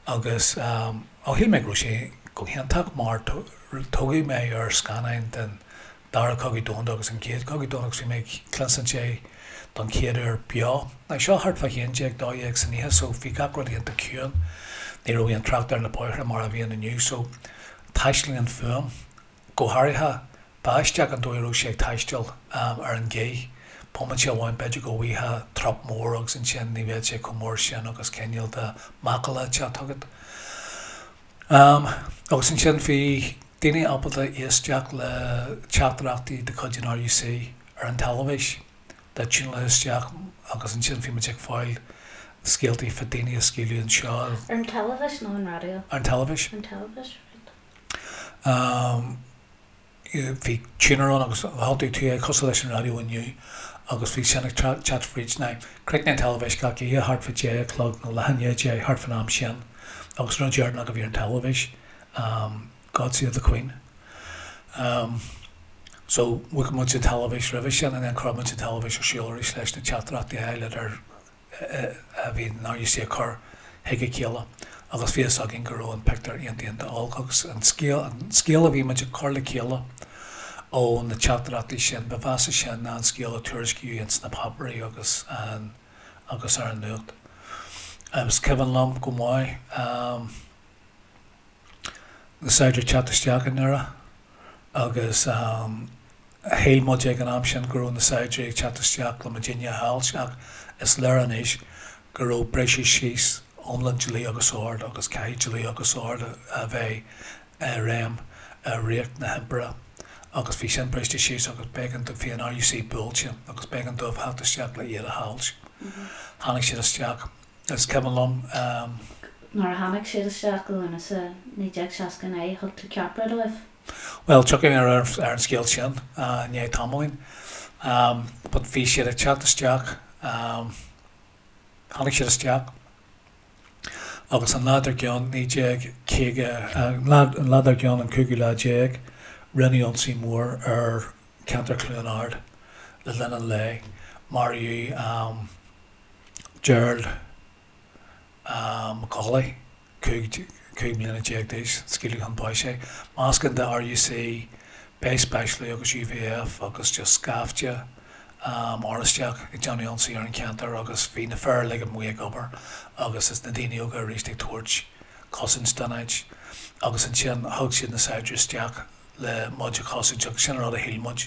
agus ó shíl mé go raibh sé go hiontach mar tógadh mé ar scannáin den Dara Cogadh Domhanda agus an Chéad Chogadh Domhanda agus bhí mé ag cluinsint é don chéad uair beo. Now seo thart fá 11, 12 san oíche so bhí gach rud iontach ciúin, ní raibh aon trácht ar na bóithre mar a bhíonn inniu so taistealaíonn fuaim, go háirithe b'aisteach an dóigh a raibh sé ag taisteal ar an ghaoth, bomaite amháin b'fhéidir go bhfaighfeá trup mór agus ansin ní bheadh sé chomh mór sin agus cineál de macalla ag teacht chugat. Agus ansin bhí daoine ábalta éisteacht le teachtaireachtaí de chuid an RUC ar an teilifís, le tiúnáil isteach agus ansin bhí muid ag fáil scéaltaí fá daoine a scaoileadh anseo. Ar an teilifís nó an raidió? Ar an teilifís. Ar an teilifís, right. Bhí tuner ann agus thiontaigh tú é cosúil leis an raidió inniu agus bhí sin ag teacht fríd. Now, chríochnaigh an teilifís gach oíche thart fá deich a chlog nó leath i ndiaidh a deich, thart fán am sin agus an rud deireanach a bhí ar an teilifís, God Save the Queen. So, mhúch muid an teilifís roimhe sin and then chuir muid an teilifís ar siúl arís leis na teachtaireachtaí a fháil idir a bhí an RUC ag cur chuig a chéile agus bhí fhios againn go raibh an pictiúr iontach iontach olc agus an scéal, an scéal a bhí muid ag cur le chéile ó na teachtaireachtaí sin, ba mheasa sin ná an scéal a tuairiscíodh ins na páipéirí agus an, agus ar an nuacht. Is cuimhin liom go maith na saighdiúirí ag teacht isteach i nDoire agus Shíl muid ag an am sin go raibh na saighdiúirí ag teacht isteach le muidinne a cheilt ach is léir anois go raibh briseadh síos iomlán dlí agus ord agus caithfidh dlí agus ord a bheith i réim i ríocht na himpire agus bhí sin briste síos agus b'éigean do, bhí an RUC buailte agus b'éigean dóibh theacht isteach le iad a cheilt. Tháinig siad isteach. Is cuimhin liom. Nuair a tháinig siad isteach i Lúnasa 1969 thug tú ceapaire dóibh? Bhuel, tiocfaidh mé ar an scéal sin i ndiaidh tamaillín. But bhí siad ag teacht isteach, tháinig siad isteach agus an lá dár gcionn, 1950, an lá dár gcionn, an cúigiú lá déag, rinneadh ionsaí mór ar cheantar Chluain Ard le linn an lae. Maraíodh Gerald McAuley, 15 mbliana d'aois, scaoileadh chun báis é. Meascán de RUC, B Specialaí agus UVF agus just scaifte Oráisteach ag déanamh ionsaí ar an cheantar agus bhí na fir uilig amuigh ag obair agus is na daoine óga arís ag tabhairt cosaint don áit agus ansin thug siad na saighdiúirí isteach le muid a chosaint agus sin an rud a shíl muid.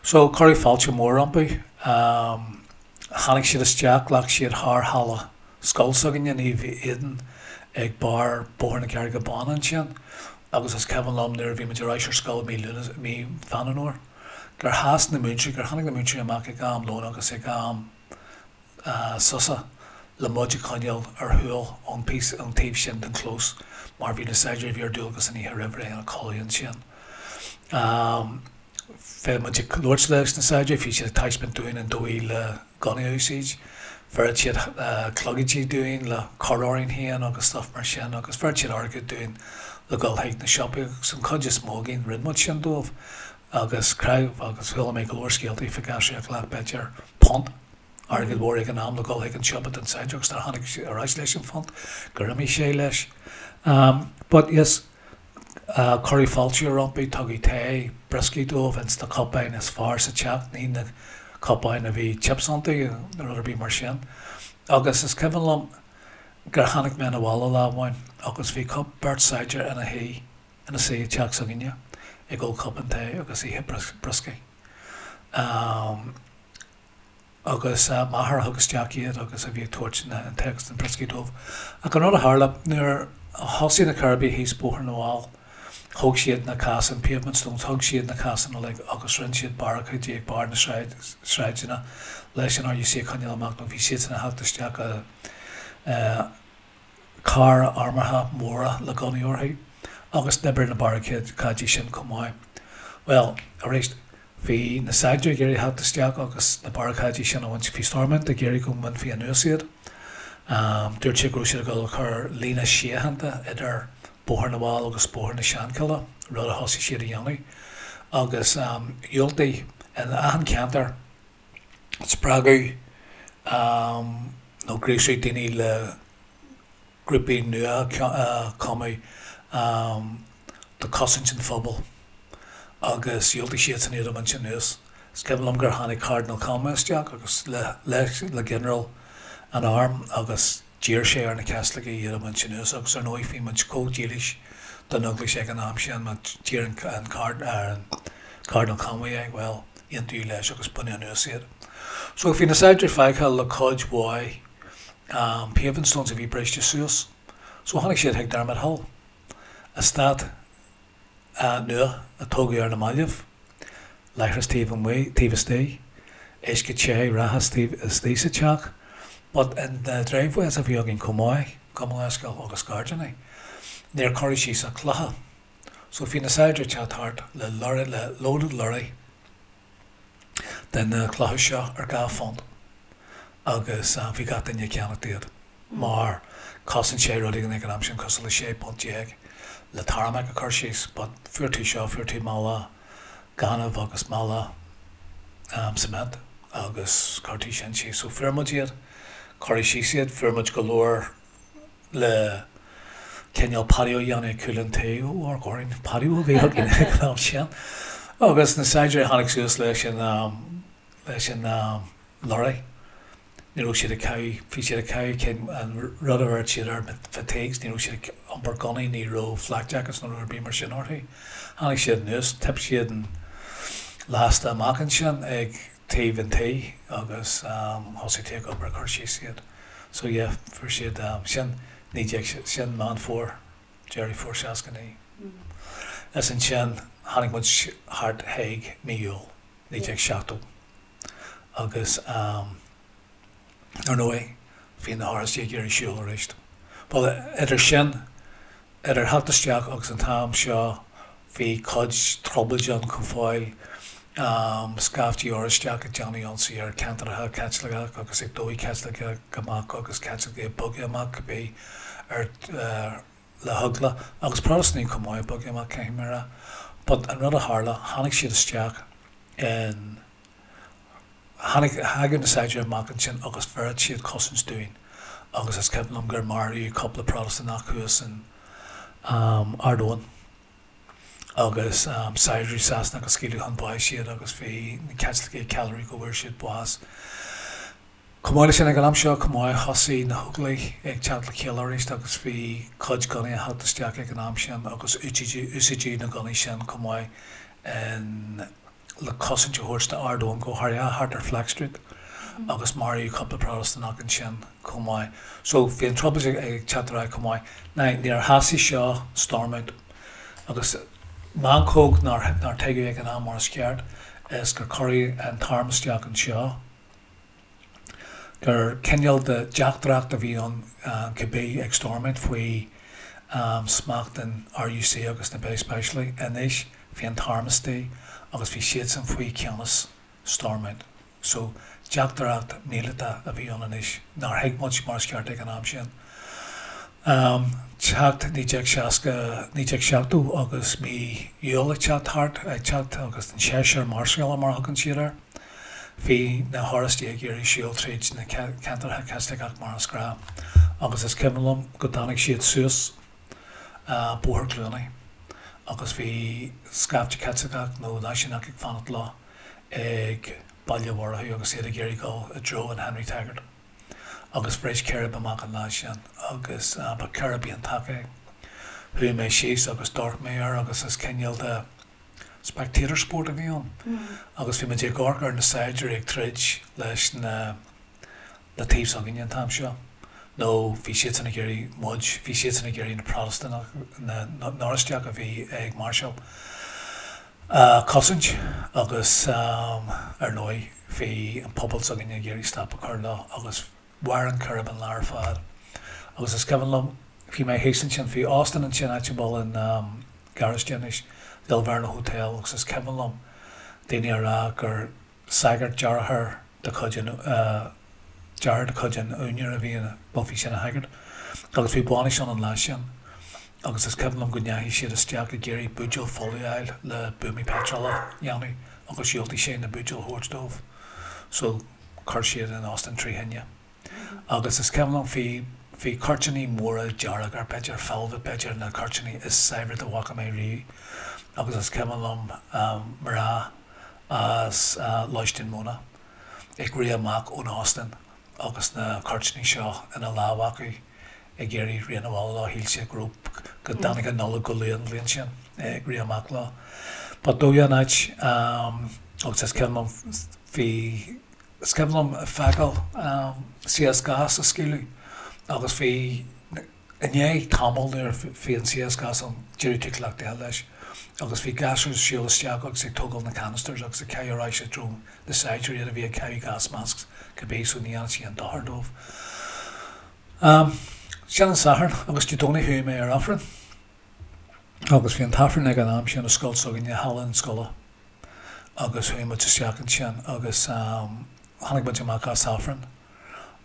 So cuireadh fáilte mhór rompu. Tháinig siad isteach, ghlac siad thar halla scoil s'againne, Naomh Aidan, ag barr Bóthar na Carraige Báine ansin agus is cuimhin liom nuair a bhí muid ar ais ar scoil mí Lúnasa, mí Mheán Fhómhair, gur sheas na múinteoirí, gur tháinig na múinteoirí amach ag am lóin agus ag am sosa le muid a choinneáil ar shiúl ón píosa, ón taobh sin den chlós mar bhí na saighdiúirí a bhí ar dualgas an oíche roimh ré ina codladh ansin. Bhí muid ag labhairt leis na saighdiúirí, bhí siad ag taispeáint dúinn an dóigh le gunnaí a úsáid, bheireadh siad clogaidí dúinn le cur orainn féin agus stuff mar sin agus bheireadh siad airgead dúinn le dhul chuig na siopaí agus an chuid is mó againn rinne muid sin dóibh agus creid agus chuala mé go leor scéaltaí fá ghasúir a ghlac b'fhéidir punt airgead mhór ag an am le dhul chuig an siopa don saighdiúir agus nuair a tháinig sé ar ais leis an phunt gur imigh sé leis. But yes, cuireadh fáilte rompu, tugadh tae, brioscaí dóibh ins na cupáin is fearr sa teach, ní na cupáin a bhí chips iontu nó rud ar bith mar sin. Agus is cuimhin liom. gur tháinig mé 'na bhaile lá amháin agus bhí beirt saighdiúir ina shuí ina suí i dteach s'againne ag ól cupán tae agus ithe brioscaí. Agus m'athair a thug isteach iad agus a bhí ag tabhairt an tae agus na brioscaí dóibh. Ach an rud a tharla, nuair a thosaigh na Coirbigh thíos Bóthar na bhFál, thóg siad na casáin, pavement stones, thóg siad na casáin uilig agus rinne siad barricáidí ag barr na sráideanna leis an RUC a choinneáil amach nó bhí siadsan ag theacht isteach i cairr armúrtha móra le gunnaí orthu agus d'oibrigh na barricáidí sin chomh maith. Bhuel, arís, bhí na saighdiúirí ag iarraidh theacht isteach agus na barricáidí sin a bhaint. Bhí Stormont ag iarraidh go mbainfí anuas iad. Dúirt siad go raibh siad ag dul a chur líne síochánta idir Bóthar na bhFál agus Bóthar na Seanchille, rud a thosaigh siad a dhéanamh. Agus dhiúltaigh in achan cheantar spreagadh nó gríosadh daoine le grúpaí nua a chumadh do chosaint an phobail agus dhiúltaigh siadsan iad a bhaint anuas. Is cuimhin liom gur tháinig Cardinal Conway isteach agus le le ginearál an airm agus d'iarr sé ar na Caitlicigh iad a bhaint anuas agus ar ndóigh bhí muid chomh dílis don Eaglais ag an am sin má d'iarr an Cardinal Conway é, bhuel, aontaíodh leis agus baineadh anuas iad. So bhí na saighdiúirí fágtha le cuid mhaith paving stones a bhí briste suas. So tháinig siad chuig Dermot Hill, eastát nua a tógadh ar na mallaibh, leithreas taobh amuigh, taobh istigh, uisce te reatha istigh sa teach, but in na driveways a bhí againn chomh maith, gabh mo leithscéal, agus gairdíní, níor cuireadh síos ach clocha. So bhí na saighdiúirí ag teacht thart le lorry, le loaded lorry de na clocha seo ar £2 agus bhí gach duine ag ceannacht iad mar chosain sé rud éigin ag an am sin cosúil le £16 punt le tarmac a chur síos but fuair tú seo, fuair tú mála gainimh agus mála cement agus chuir tú sin síos. So fuair muid iad, cuireadh síos iad, fuair muid go leor le cineál patio a dhéanamh ag cúl an tí, ó amharc orainn, patio a bhí againn ag an am sin. Agus na saighdiúirí a tháinig suas leis an, leis an lorry, ní raibh siad ag caitheamh, bhí siad ag caitheamh cinn, an rud a bheireadh siad air, fatigues, ní raibh siad ag iompar gunnaí, ní raibh flak jackets nó rud ar bith mar sin orthu. Tháinig siad anuas, thip siad an lasta amach ansin ag taobh an tí agus thosaigh tú ag obair ag cur síos iad. So yeah, fuair siad, sin 19, sin Meán Fómhair, Deireadh Fómhair 69. Is ansin tháinig muid thart chuig mí Iúil 1970 agus ar ndóigh bhí na hOráistigh ag iarraidh siúl arís. Bhuel, idir sin, Idir theacht isteach agus an t-am seo bhí cuid trioblóide ann chomh fóill, scaifte Oráisteach ag déanamh ionsaí ar ceantracha Caitliceach agus ag dóigh Caitliceach amach agus Caitlicigh ag bogadh amach cibé ar le heagla agus Protastúnaigh chomh maith ag bogadh amach caithfidh mé a rá. But an rud a tharla, tháinig siad isteach in. Tháinig, thagadh na saighdiúirí amach ansin agus bheireadh siad cosaint dúinn agus is cuimhin liom gur maraíodh cúpla Protastúnach thuas in Ard Eoin agus saighdiúirí Sasanach a scaoileadh chun báis iad agus bhí na Caitlicigh ag ceiliúradh go bhfuair siad bás. Chomh maith leis sin ag an am seo chomh maith thosaigh na hÓglaigh ag teacht le chéile arís agus bhí cuid gunnaí ag theacht isteach ag an am sin agus úsáideadh na gunnaí sin chomh maith in le cosaint a thabhairt d'Ard Eoin, go háirithe thart ar Flex Street agus maraíodh cúpla Protastúnach ansin chomh maith. So bhí an trioblóid ag teacht ar aghaidh chomh maith. Now níor shásaigh seo Stormont agus meancóg nár nár tuigeadh ag an am mar is ceart is gur cuireadh an t-arm isteach anseo. gur cineál de dteachtaireacht a bhí ann cibé ag Stormont faoi smacht an RUC agus na Speisialaigh. Anois bhí an t-arm istigh agus bhí siadsan faoi cheannas Stormont. So teachtaireacht míleata a bhí ann anois nár thuig muid mar is ceart ag an am sin. Teacht 1960, 1970 agus mí Iúil ag teacht thart, ag teacht agus an séasúr máirseála mar a thugann siad air. Bhí na hOráistigh ag iarraidh siúl tríd na ceantracha Caitliceach mar is gnáth agus is cuimhin liom go dtáinig siad suas Bóthar Cluanaí agus bhí scaifte Caitliceach nó náisiúnach ag fanacht leo ag Baile Mhurchú agus iad ag iarraidh dul i dtreo an Henry Taggart. Agus bhris círéib amach an lá sin agus ba círéib iontach é. Chuaigh mé síos agus d'amharc mé air agus is cineál de spectator sport a bhí ann. Agus bhí muid ag amharc ar na saighdiúirí ag troid leis na na taobh s'againne an t-am seo. Nó bhí siadsan ag iarraidh muid, bhí siadsan ag iarraidh na Protastúnaigh, na nOráisteach a bhí ag máirseáil a chosaint agus ar ndóigh bhí an pobal s'againne ag iarraidh stop a chur leo agus mhair an círéib an lá ar fad. Agus is cuimhin liom, bhí mé thíos ansin, bhí óstán ansin áit a bhfuil an garáiste anois, The Alverno Hotel agus is cuimhin liom daoine a rá gur sagart deartháir de chuid an deartháir de chuid an úinéara a bhí ina, bhuel bhí sé ina shagart agus bhí bainis ann an lá sin agus is cuimhin liom go ndeachaigh siad isteach ag iarraidh buidéal folamh a fháil le buamaí peitreal a dhéanamh agus dhiúltaigh sé na buidéil a thabhairt dóibh so chuir siad an óstán trí thine. Agus is cuimhin liom bhí, bhí cuirtíní móra dearga, b'fhéidir velvet, b'fhéidir na cuirtíní is saibhre dá bhfaca mé riamh agus is cuimhin liom mná as Lóistín Móna ag rith amach ón óstán agus na cuirtíní seo ina lámh acu ag iarraidh rith 'na bhaile leo, shíl siad go raibh, go dtáinig an Nollaig go luath an bhliain sin, ag rith amach leo. But dóigh an áit agus is cuimhin liom bhí, is cuimhin liom feiceáil CS gas á scaoileadh agus bhí, i ndiaidh tamaill nuair a bhí an CS gas ann d'éirigh tú cleachtaithe leis agus bhí gasúir ag siúl isteach agus ag tógáil na canisters agus ag caitheamh ar ais i dtreo na saighdiúirí iad a bhí ag caitheamh gas masks cibé so ní dhearna sé aon dochar dóibh. Sin an Satharn agus Dé Domhnaigh chuaigh mé ar Aifreann agus bhí an t-Aifreann ag an am sin i scoil s'againne, halla an scoile agus chuaigh muid isteach ansin agus tháinig muid amach as Aifreann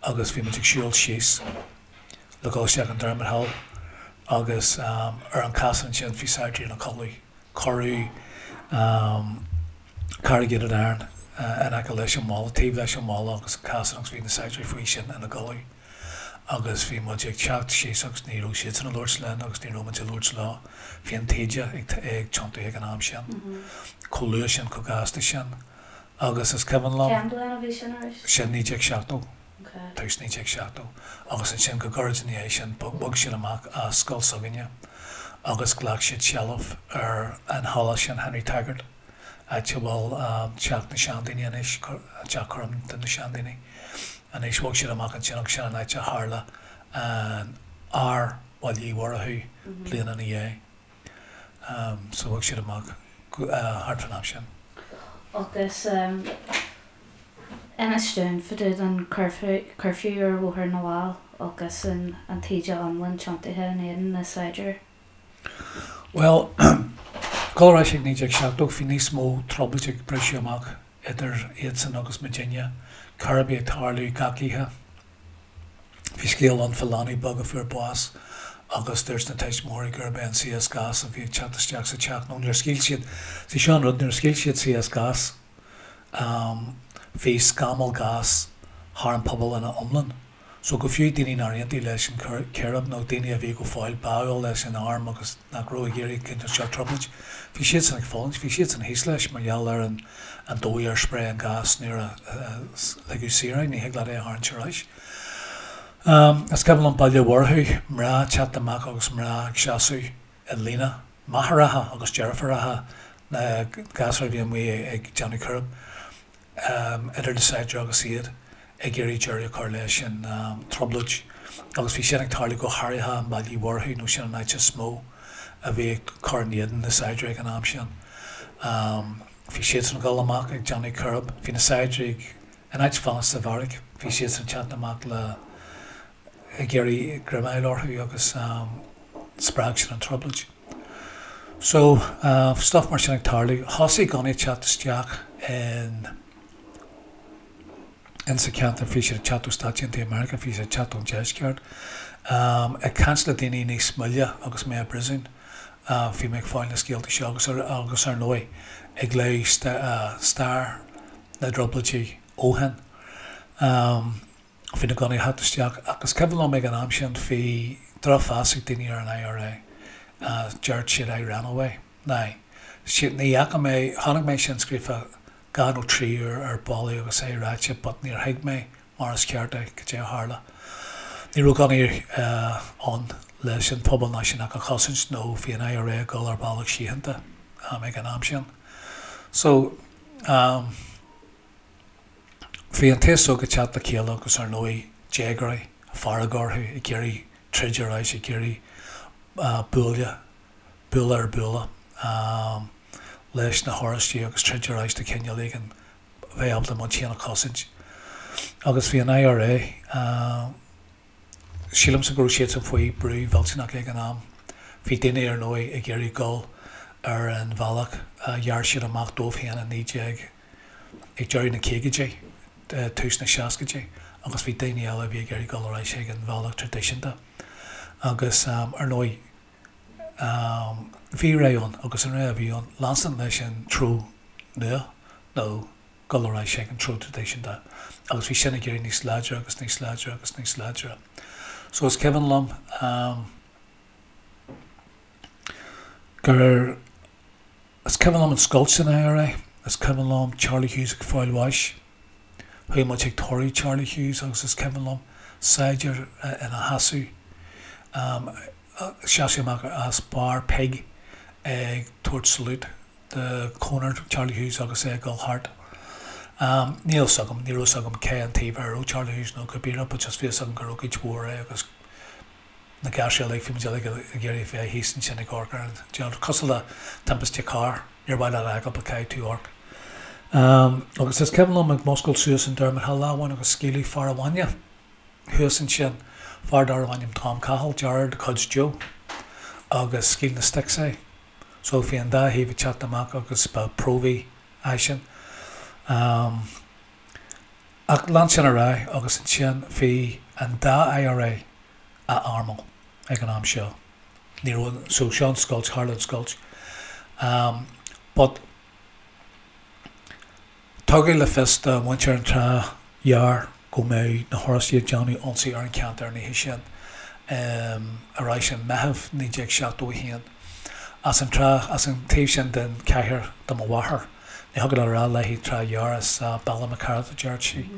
agus bhí muid ag siúl síos le dhul isteach in Dermot Hill agus ar an casán ansin bhí saighdiúirí ina codladh. Cuireadh corrugated iron in aice leis an mballa, taobh leis an mballa agus an casán agus bhí na saighdiúirí faoi sin ina gcodladh agus bhí muid ag teacht síos agus ní raibh siadsan ag labhairt linn agus ní raibh muid ag labhairt leo. Bhí an taoide ag tiontú ag an am sin, chomh luath sin, chomh gasta sin agus is cuimhin liom. Cén bhliain a bhí sin arís? Sin 1970. tús 1970, agus ansin go gairid ina dhiaidh sin bhog siad amach as scoil s'againne agus ghlac siad seilbh ar an halla sin, Henry Taggart, áit a bhfuil teach na seandaoine anois, teach cúraim do na seandaoine anois. Bhog siad amach ansin agus sin an áit a tharla an ár Bhaile Uí Mhurchú bliain ina dhiaidh. So bhog siad amach thart fán am sin. Agus inis dúinn fá dtaobh den curfew ar Bhóthar na bhFál agus an taoide iomlán tiontaithe in éadan na saighdiúir. Bhuel, dul ar ais ag 1970, bhí níos mó trioblóid ag briseadh amach idir iadsan agus muidinne, círéibí ag tarlú gach oíche. Bhí scéal ann fá leanbh beag a fuair bás agus dúirt na tuismitheoirí gurb é an CS gas a bhí ag teacht isteach sa teach nó nuair a scaoil siad, see seo an rud, nuair a scaoil siad CS gas bhí scamall gas thar an pobal ina iomlán. So go fiú daoine nár aontaigh leis an círéib nó daoine a bhí go fóill báúil leis an arm agus nach raibh ag iarraidh cineál seo trioblóid, bhí siadsan ag fulaingt, bhí siadsan thíos leis mar gheall ar an an dóigh ar spréigh an gás nuair a ligeadh saor é, ní thig leat é a tharraingt ar ais. Is cuimhin liom Baile Mhurchú, mná ag teacht amach agus mná ag seasamh i líne, máithreacha agus deirfiúracha na gasúir a bhí amuigh ag déanamh círéib, idir na saighdiúirí agus iad ag iarraidh deireadh a chur leis an trioblóid. Agus bhí sin ag tarlú go háirithe i mBaile Uí Mhurchú nó sin an áit is mó a bhí ag cur in éadan na saighdiúirí ag an am sin. Bhí siadsan ag dul amach ag déanamh círéib. Bhí na saighdiúirí ag, in áit fanacht sa bheairic, bhí siadsan ag teacht amach le, ag iarraidh greim a fháil orthu agus spreag sin an trioblóid. So, stuff mar sin ag tarlú. Thosaigh gunnaí ag teacht isteach in, in sa cheantar, bhí siad ag teacht ó Stáit Aontaithe Meiriceá, bhí siad ag teacht ón deisceart. Ag caint le daoine níos moille agus mé i bpríosún, Bhí mé ag fáil na scéalta seo agus agus ar ndóigh ag léamh stair na dTrioblóidí ó shin. Bhí na gunnaí ag teacht isteach ach is cuimhin liom ag an am sin bhí drochmheas ag daoine ar an IRA. Deir siad I ran away. Now, ní fhaca mé, chonaic mé sin scríofa dhá nó trí uair ar ballaí agus é ráite but níor thuig mé. mar is ceart é, cad é a tharla. Ní raibh gunnaí ann leis an phobal náisiúnach a chosaint nó bhí an IRA ag dul ar bealach síochánta ag an am sin. So, bhí an t-aos óg ag teacht le chéile agus ar ndóigh déagóirí, fearg orthu, ag iarraidh troid ar ais, ag iarraidh bualadh, bualadh ar bualadh leis na hOráistigh agus troid ar ais de chineál éigin bheith ábalta muid féin a chosaint. Agus bhí an IRA, sílimse go raibh siadsan faoi brú mhillteanach ag an am. Bhí daoine ar ndóigh ag iarraidh dul ar an bhealach a ghearr siad amach dóibh féin i 19, ag deireadh na caogaidí, tús na seascaidí agus bhí daoine eile a bhí ag iarraidh dul ar ais chuig an bhealach traidisiúnta. Agus ar ndóigh bhí rogha ann agus an rogha a bhí ann, leanstan leis an treo nua nó dul ar ais chuig an treo traidisiúnta agus bhí sin ag éirí níos láidre agus níos láidre agus níos láidre. So is cuimhin liom gur, is cuimhin liom an scoilt san IRA, is cuimhin liom Charlie Hughes ag fáil bháis, chuaigh muid chuig tórramh Charlie Hughes agus is cuimhin liom saighdiúir ina sheasamh, seasamh amach as Bar Pig ag tabhairt salute do chonair Charlie Hughes agus é ag dul thart. Níl fhios agam, ní raibh fhios agam cé an taobh ar raibh Charlie Hughes nó cibé rud but just bhí fhios agam gur ócáid mhór é agus na gasúir uilig, bhí muid uilig ag iarraidh bheith thíos ansin ag amharc ar an deal. Cosúil le timpiste cairr, níor mhaith leat a fheiceáil but caithfidh tú amharc. Agus is cuimhin liom ag muscailt suas an Dermot Hill lá amháin agus scaoileadh fear an bhainne thuas ansin, fear darbh ainm Tom Cahill, deartháir de chuid Joe, agus scaoil na sticks é. So bhí an dá thaobh ag teacht amach agus ba próvaí eisean. Ach lean sin ar aghaidh agus ansin bhí an dá IRA á armáil ag an am seo. Ní raibh, so seo an scoilt, tharla an scoilt. But tugadh le fios do mhuintir an Trá Ghearr go mbeadh na hOráistigh ag déanamh ionsaí ar an cheantar an oíche sin, ar ais i Meitheamh 1971. As an trá, as an taobh sin den chathair do mo mháthair. Ní thiocfadh leat a rá léi Trá Ghearr, is Ballymacarrett a deireadh sí.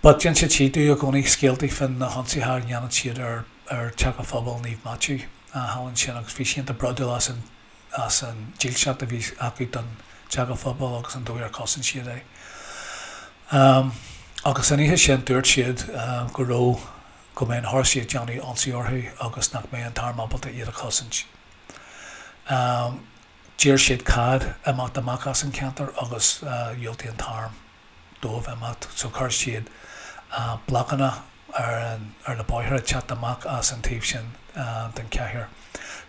But d'inseodh sí domh i gcónaí scéaltaí fá na hionsaithe a dhéanadh siad ar ar Teach an Phobail Naomh Maitiú thall ansin agus bhí sí iontach bródúil as an as an dílseacht a bhí acu don Teach an Phobail agus an dóigh ar chosain siad é. Agus an oíche sin dúirt siad go raibh, go mbeadh na hOráistigh ag déanamh ionsaí orthu agus nach mbeadh an t-arm ábalta iad a chosaint. D'iarr siad cead imeacht amach as an cheantar agus dhiúltaigh an t-arm. dóibh imeacht so chuir siad blocanna ar an ar na bóithre ag teacht amach as an taobh sin den chathair.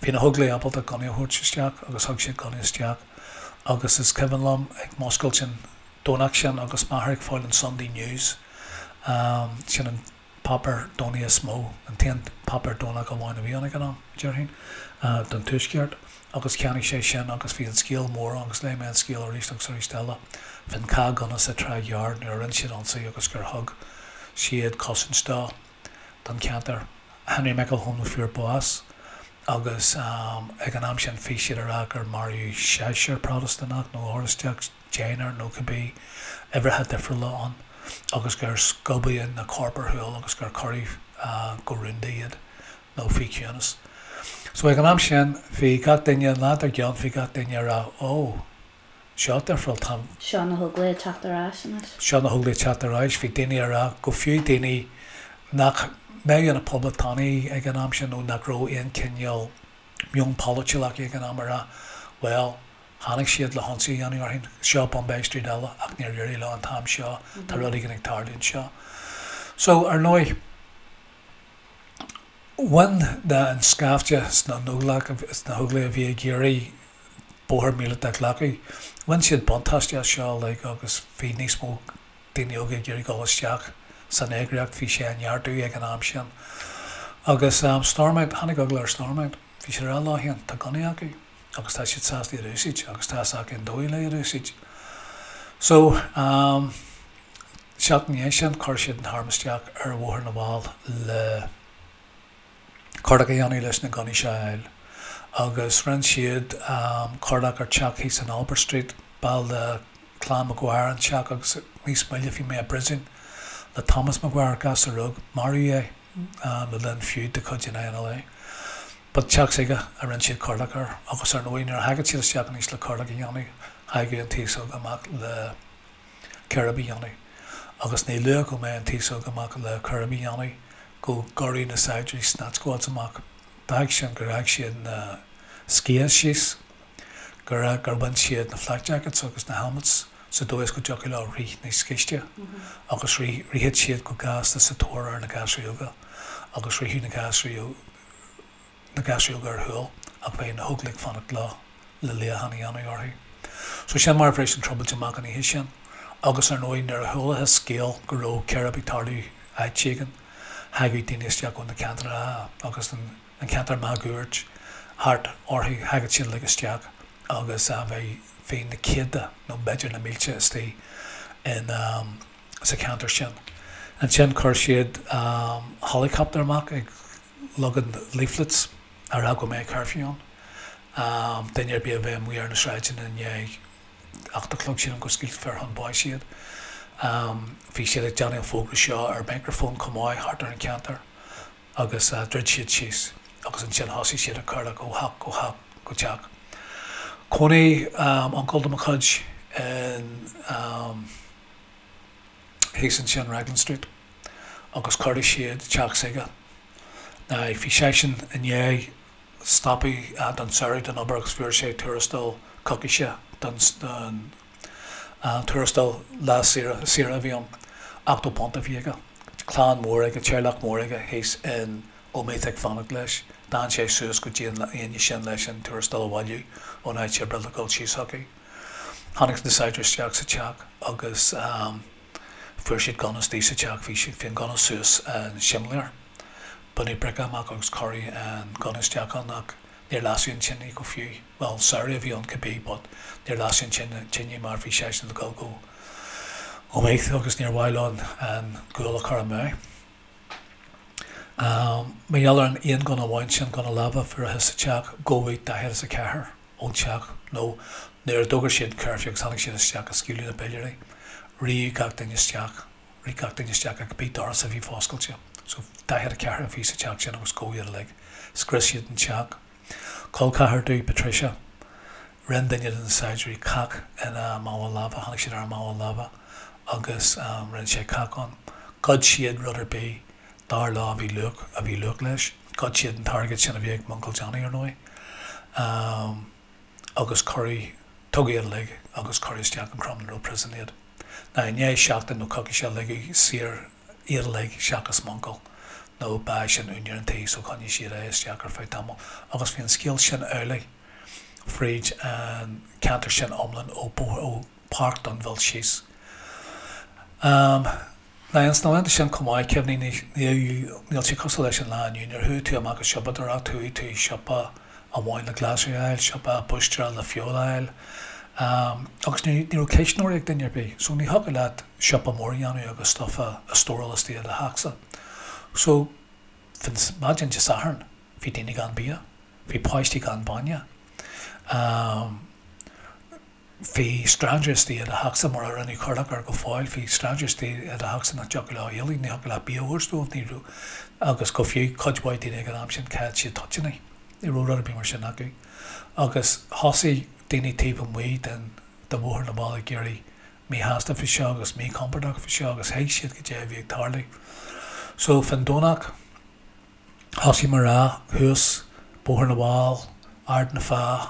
Bhí na hÓglaigh ábalta gunnaí a thabhairt isteach agus thug siad gunnaí isteach agus is cuimhin liom ag muscailt an Domhnach sin agus m'athair ag fáil an Sunday News, sin an páipéar Domhnaigh is mó, an t-aon páipéar Domhnach amháin a bhí ann ag an am, déarfainn, don Tuaisceart, agus cheannaigh sé sin agus bhí an scéal mór ann agus léigh mé an scéal arís agus arís eile fán chath gunna sa Trá Ghearr nuair a rinne siad ionsaí agus gur thug siad cosaint dó, don cheantar. Henry McElhone a fuair bás agus ag an am sin bhí siad ag rá gur maraíodh seisear Protastúnach nó Oráisteach, deichniúr nó cibé uimhreacha difriúla ann agus gur scuabadh na coirp ar shiúl agus gur cuireadh go rúnda iad nó faoi chiúnas. So ag an am sin bhí gach duine, an lá dár gcionn bhí gach duine ag rá ó, seo difriúil, tá. Seo na hÓglaigh ag teacht ar ais anois. Seo na hÓglaigh ag teacht ar ais. Bhí daoine ag rá, go fiú daoine nach mbeadh ina poblachtánaigh ag an am sin nó nach raibh aon chineál meon polaitiúil acu ag an am ag rá, bhuel, Tháinig siad le hionsaí a dhéanamh orainn. Seo Bombay Street eile ach níor éirigh leo an t-am seo, tá rud éigin ag tarlú anseo. So, ar ndóigh, bhain na, an scaifte sna nÓglach, sna hÓglaigh a bhí ag iarraidh bóthar míleata a ghlacadh, bhain siad buntáiste as seo uilig agus bhí níos mó daoine óga ag iarraidh dul isteach san eagraíocht, bhí sé á neartú ag an am sin. Agus Stormont, tháinig eagla ar Stormont, bhí siad ag rá leo féin, tá gunnaí acu. agus tá siad sásta iad a úsáid agus tá fhios acu an dóigh le iad a úsáid. So, seachtain ina dhiaidh sin, chuir siad an t-arm isteach ar Bhóthar na bhFál le cuardach a dhéanamh leis na gunnaí seo a fháil. Agus rinne siad cuardach ar teach thíos in Albert Street, ball de Clann Maguire an teach agus níos moille bhí mé i bpríosún. Le Thomas Maguire, gasúr óg, maraíodh é le linn feud de chuid an INLA. But teach s'aige a rinne siad corrlach air agus ar ndóigh nuair a thagadh siad isteach anois le corrlach a dhéanamh, thagadh an t-aos óg amach le coirib a dhéanamh. Agus ní luath go mbeadh an t-aos óg amach le coirib a dhéanamh go gcuireadh na saighdiúirí snatch squads amach. D'fhág sin gur fhág siad na sciath síos, gur gur bhain siad na flak jackets agus na helmets sa dóigh is go dtiocfadh leo rith níos gaiste agus rith ritheadh siad go gasta sa tóir ar na gasúirí óga agus ritheadh na gasúirí na gasúirí óga ar shiúl ach bheadh na hóglaigh ag fanacht leo le luíochán a dhéanamh orthu. So sin mar a bhris an trioblóid amach an oíche sin agus ar ndóigh nuair a chualathas scéal go raibh coirib ag tarlú áit éigin thagadh daoine isteach ó na ceantracha agus an an ceantar máguaird thart orthu, thagadh siad uilig isteach agus bheadh bhí na céadta nó b'fhéidir na mílte istigh in sa cheantar sin. Ansin chuir siad helicopter amach ag leagan leaflets a rá go mbeadh curfew ann. Duine ar bith a bheith amuigh ar na sráideanna i ndiaidh 8 a chlog sílim go scaoilfear chun báis iad. Bhí siad ag déanamh an fógra seo ar microphone chomh maith thart ar an cheantar. agus dhruid siad síos agus ansin thosaigh siad ag corrlach ó theach go theach go teach. Chónaigh uncail de mo chuid in thíos ansin Raglan Street agus chuardaigh siad teach s'aige. Now bhí seisean i ndiaidh stopadh don samhradh den obair agus fuair sé tuarastal coicíse don don tuarastal lá saoire saoire a bhí ann. £80 a bhí aige. Clann mór aige, teaghlach mór aige thíos in Omeath ag fanacht leis. D'fhan sé suas go dtí an Aoine sin leis an tuarastal a bhailiú ón áit oibre le dhul síos chucu. Tháinig na saighdiúirí isteach sa teach agus fuair siad gunna istigh sa teach. Bhí siad, bhí an gunna suas an simléar. Baineadh brice amach agus cuireadh an gunna isteach ann ach níor lasadh an tine go fiú. Bhuel, samhradh a bhí ann cibé but níor lasadh an tine mar bhí seisean le dhul go Omeath agus níor mhaith leo an gual a chur amú. Mar gheall ar an aon gunna amháin sin, gunna láimhe a fuarthas sa teach, gabhadh 44 ón teach nó nuair a d'fhógair siad an curfew agus tháinig siad isteach agus scaoileadh na piléirí, ritheadh gach duine isteach, rith gach duine isteach ar cibé doras a bhí foscailte. So 44 a bhí sa teach sin agus gabhadh iad uilig. Scrios siad an teach. Col ceathar domh, Patricia. Rinne duine de na saighdiúirí cac ina mála láimhe, tháinig siad ar a mála láimhe agus rinne sé cac ann. Ghoid siad rud ar bith dar leo a bhí luach, a bhí luach leis. Ghoid siad an t-airgead sin a bhí ag m'uncail Johnny, ar ndóigh. Agus cuireadh, tugadh iad uilig agus cuireadh isteach in Crumlin Road Prison iad. Now i ndiaidh seachtain nó coicíse ligeadh saor iad uilig seachas m'uncail nó ba eisean úinéir an tí so choinnigh siad é isteach ar feadh tamaill agus bhí an scéal sin amhlaidh fríd an ceantar sin iomlán ó ó Páirc Dunville síos. Now ins na laethanta sin chomh maith, cuimhnigh, níl sé cosúil leis an lá inniu, nuair a chuaigh tú amach ag siopadóireacht, chuaigh tú i siopa amháin le glasraí a fháil, siopa búistéara le feoil a fháil, agus ní raibh cuisneoirí ag duine ar bith, so ní thiocfadh leat siopa mór a dhéanamh agus stuff a stóráil istigh i do theachsa. So, maidin Dé Sathairn, bhí daoine gan bia, bhí páistí gan bainne. Bhí stranger istigh i do theachsa mar a rinneadh corrlach air go fóill, bhí stranger istigh i do theachsa nach dtiocfadh leo éalú, ní thiocfadh leat bia a thabhairt dóibh, ní raibh, agus go fiú cuid mhaith daoine ag an am sin chaill siad toitíní, ní raibh rud ar bith mar sin acu. Agus thosaigh daoine taobh amuigh den de Bhóthar na bhFál ag éirí míshásta faoi seo agus míchompordach faoi seo agus thuig siad goidé a bhí ag tarlú. So fán Domhnach, Thosaigh mná thuas Bóthar na bhFál, Ard na Feá,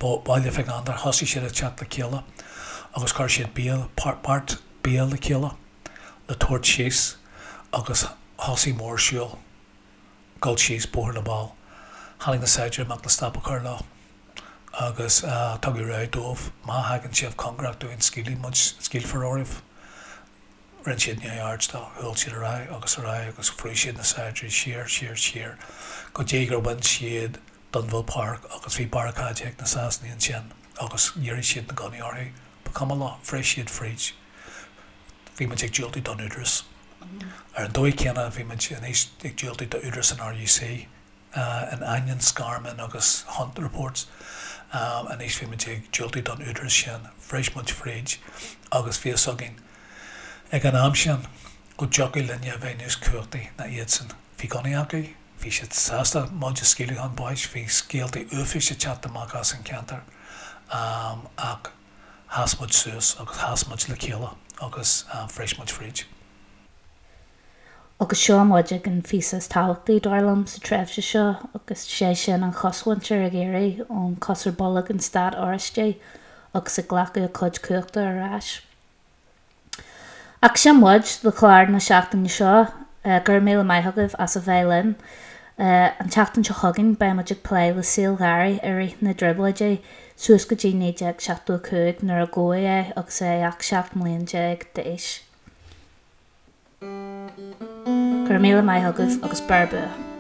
Baile Mhic Andair, thosaigh siad ag teacht le chéile agus chuir siad bia, beart bia le chéile le tabhairt síos agus thosaigh mórshiúl dul síos Bóthar na bhFál. Tháinig na saighdiúirí amach le stop a chur leo agus tugadh rabhadh dóibh, má thagann sibh cóngarach dúinn scaoilfidh muid, scaoilfear oraibh. Rinne siad neamhaird de, shiúil siad ar aghaidh agus ar aghaidh agus bhrúigh siad na saighdiúirí siar, siar, siar go dtí gur bhain siad Dunville Park agus bhí barricáidí ag na Sasanaigh ansin agus dhírigh siad na gunnaí orthu. Ba chuma leo, bhris siad fríd. Bhí muid ag diúltú don údarás. Ar an dóigh chéanna bhí muid anois ag diúltú d'údarás an RUC. In ainneoin Scarman agus Hunt reports, anois bhí muid ag diúltú don údarás sin. Bhris muid fríd agus bhí fhios againn ag an am sin. Go dtiocfadh linne a bheith níos cumhachtaí ná iadsan. Bhí gunnaí acu, bhí siad sásta muid a scaoileadh chun báis, bhí scéalta uafáis ag teacht amach as an cheantar ach sheas muid suas agus sheas muid le chéile agus bhris muid fríd. Agus seo muid ag an phíosa is tábhachtaí, dar liom, sa tréimhse seo agus sé sin an chosmhuintir ag éirí ón cos ar bolg an Stát Oráistigh agus ag glacadh a cuid cumhachta ar ais. Ach sin muid do chlár na seachtaine seo. Go raibh míle maith agaibh as a bheith linn. An tseachtain seo chugainn beidh muid ag plé le saol Gharry i rith na dTrioblóidí suas go dtí 1975 nuair a gabhadh é agus é ach 17 mbliain d'aois. Go raibh míle maith agaibh agus beir bua!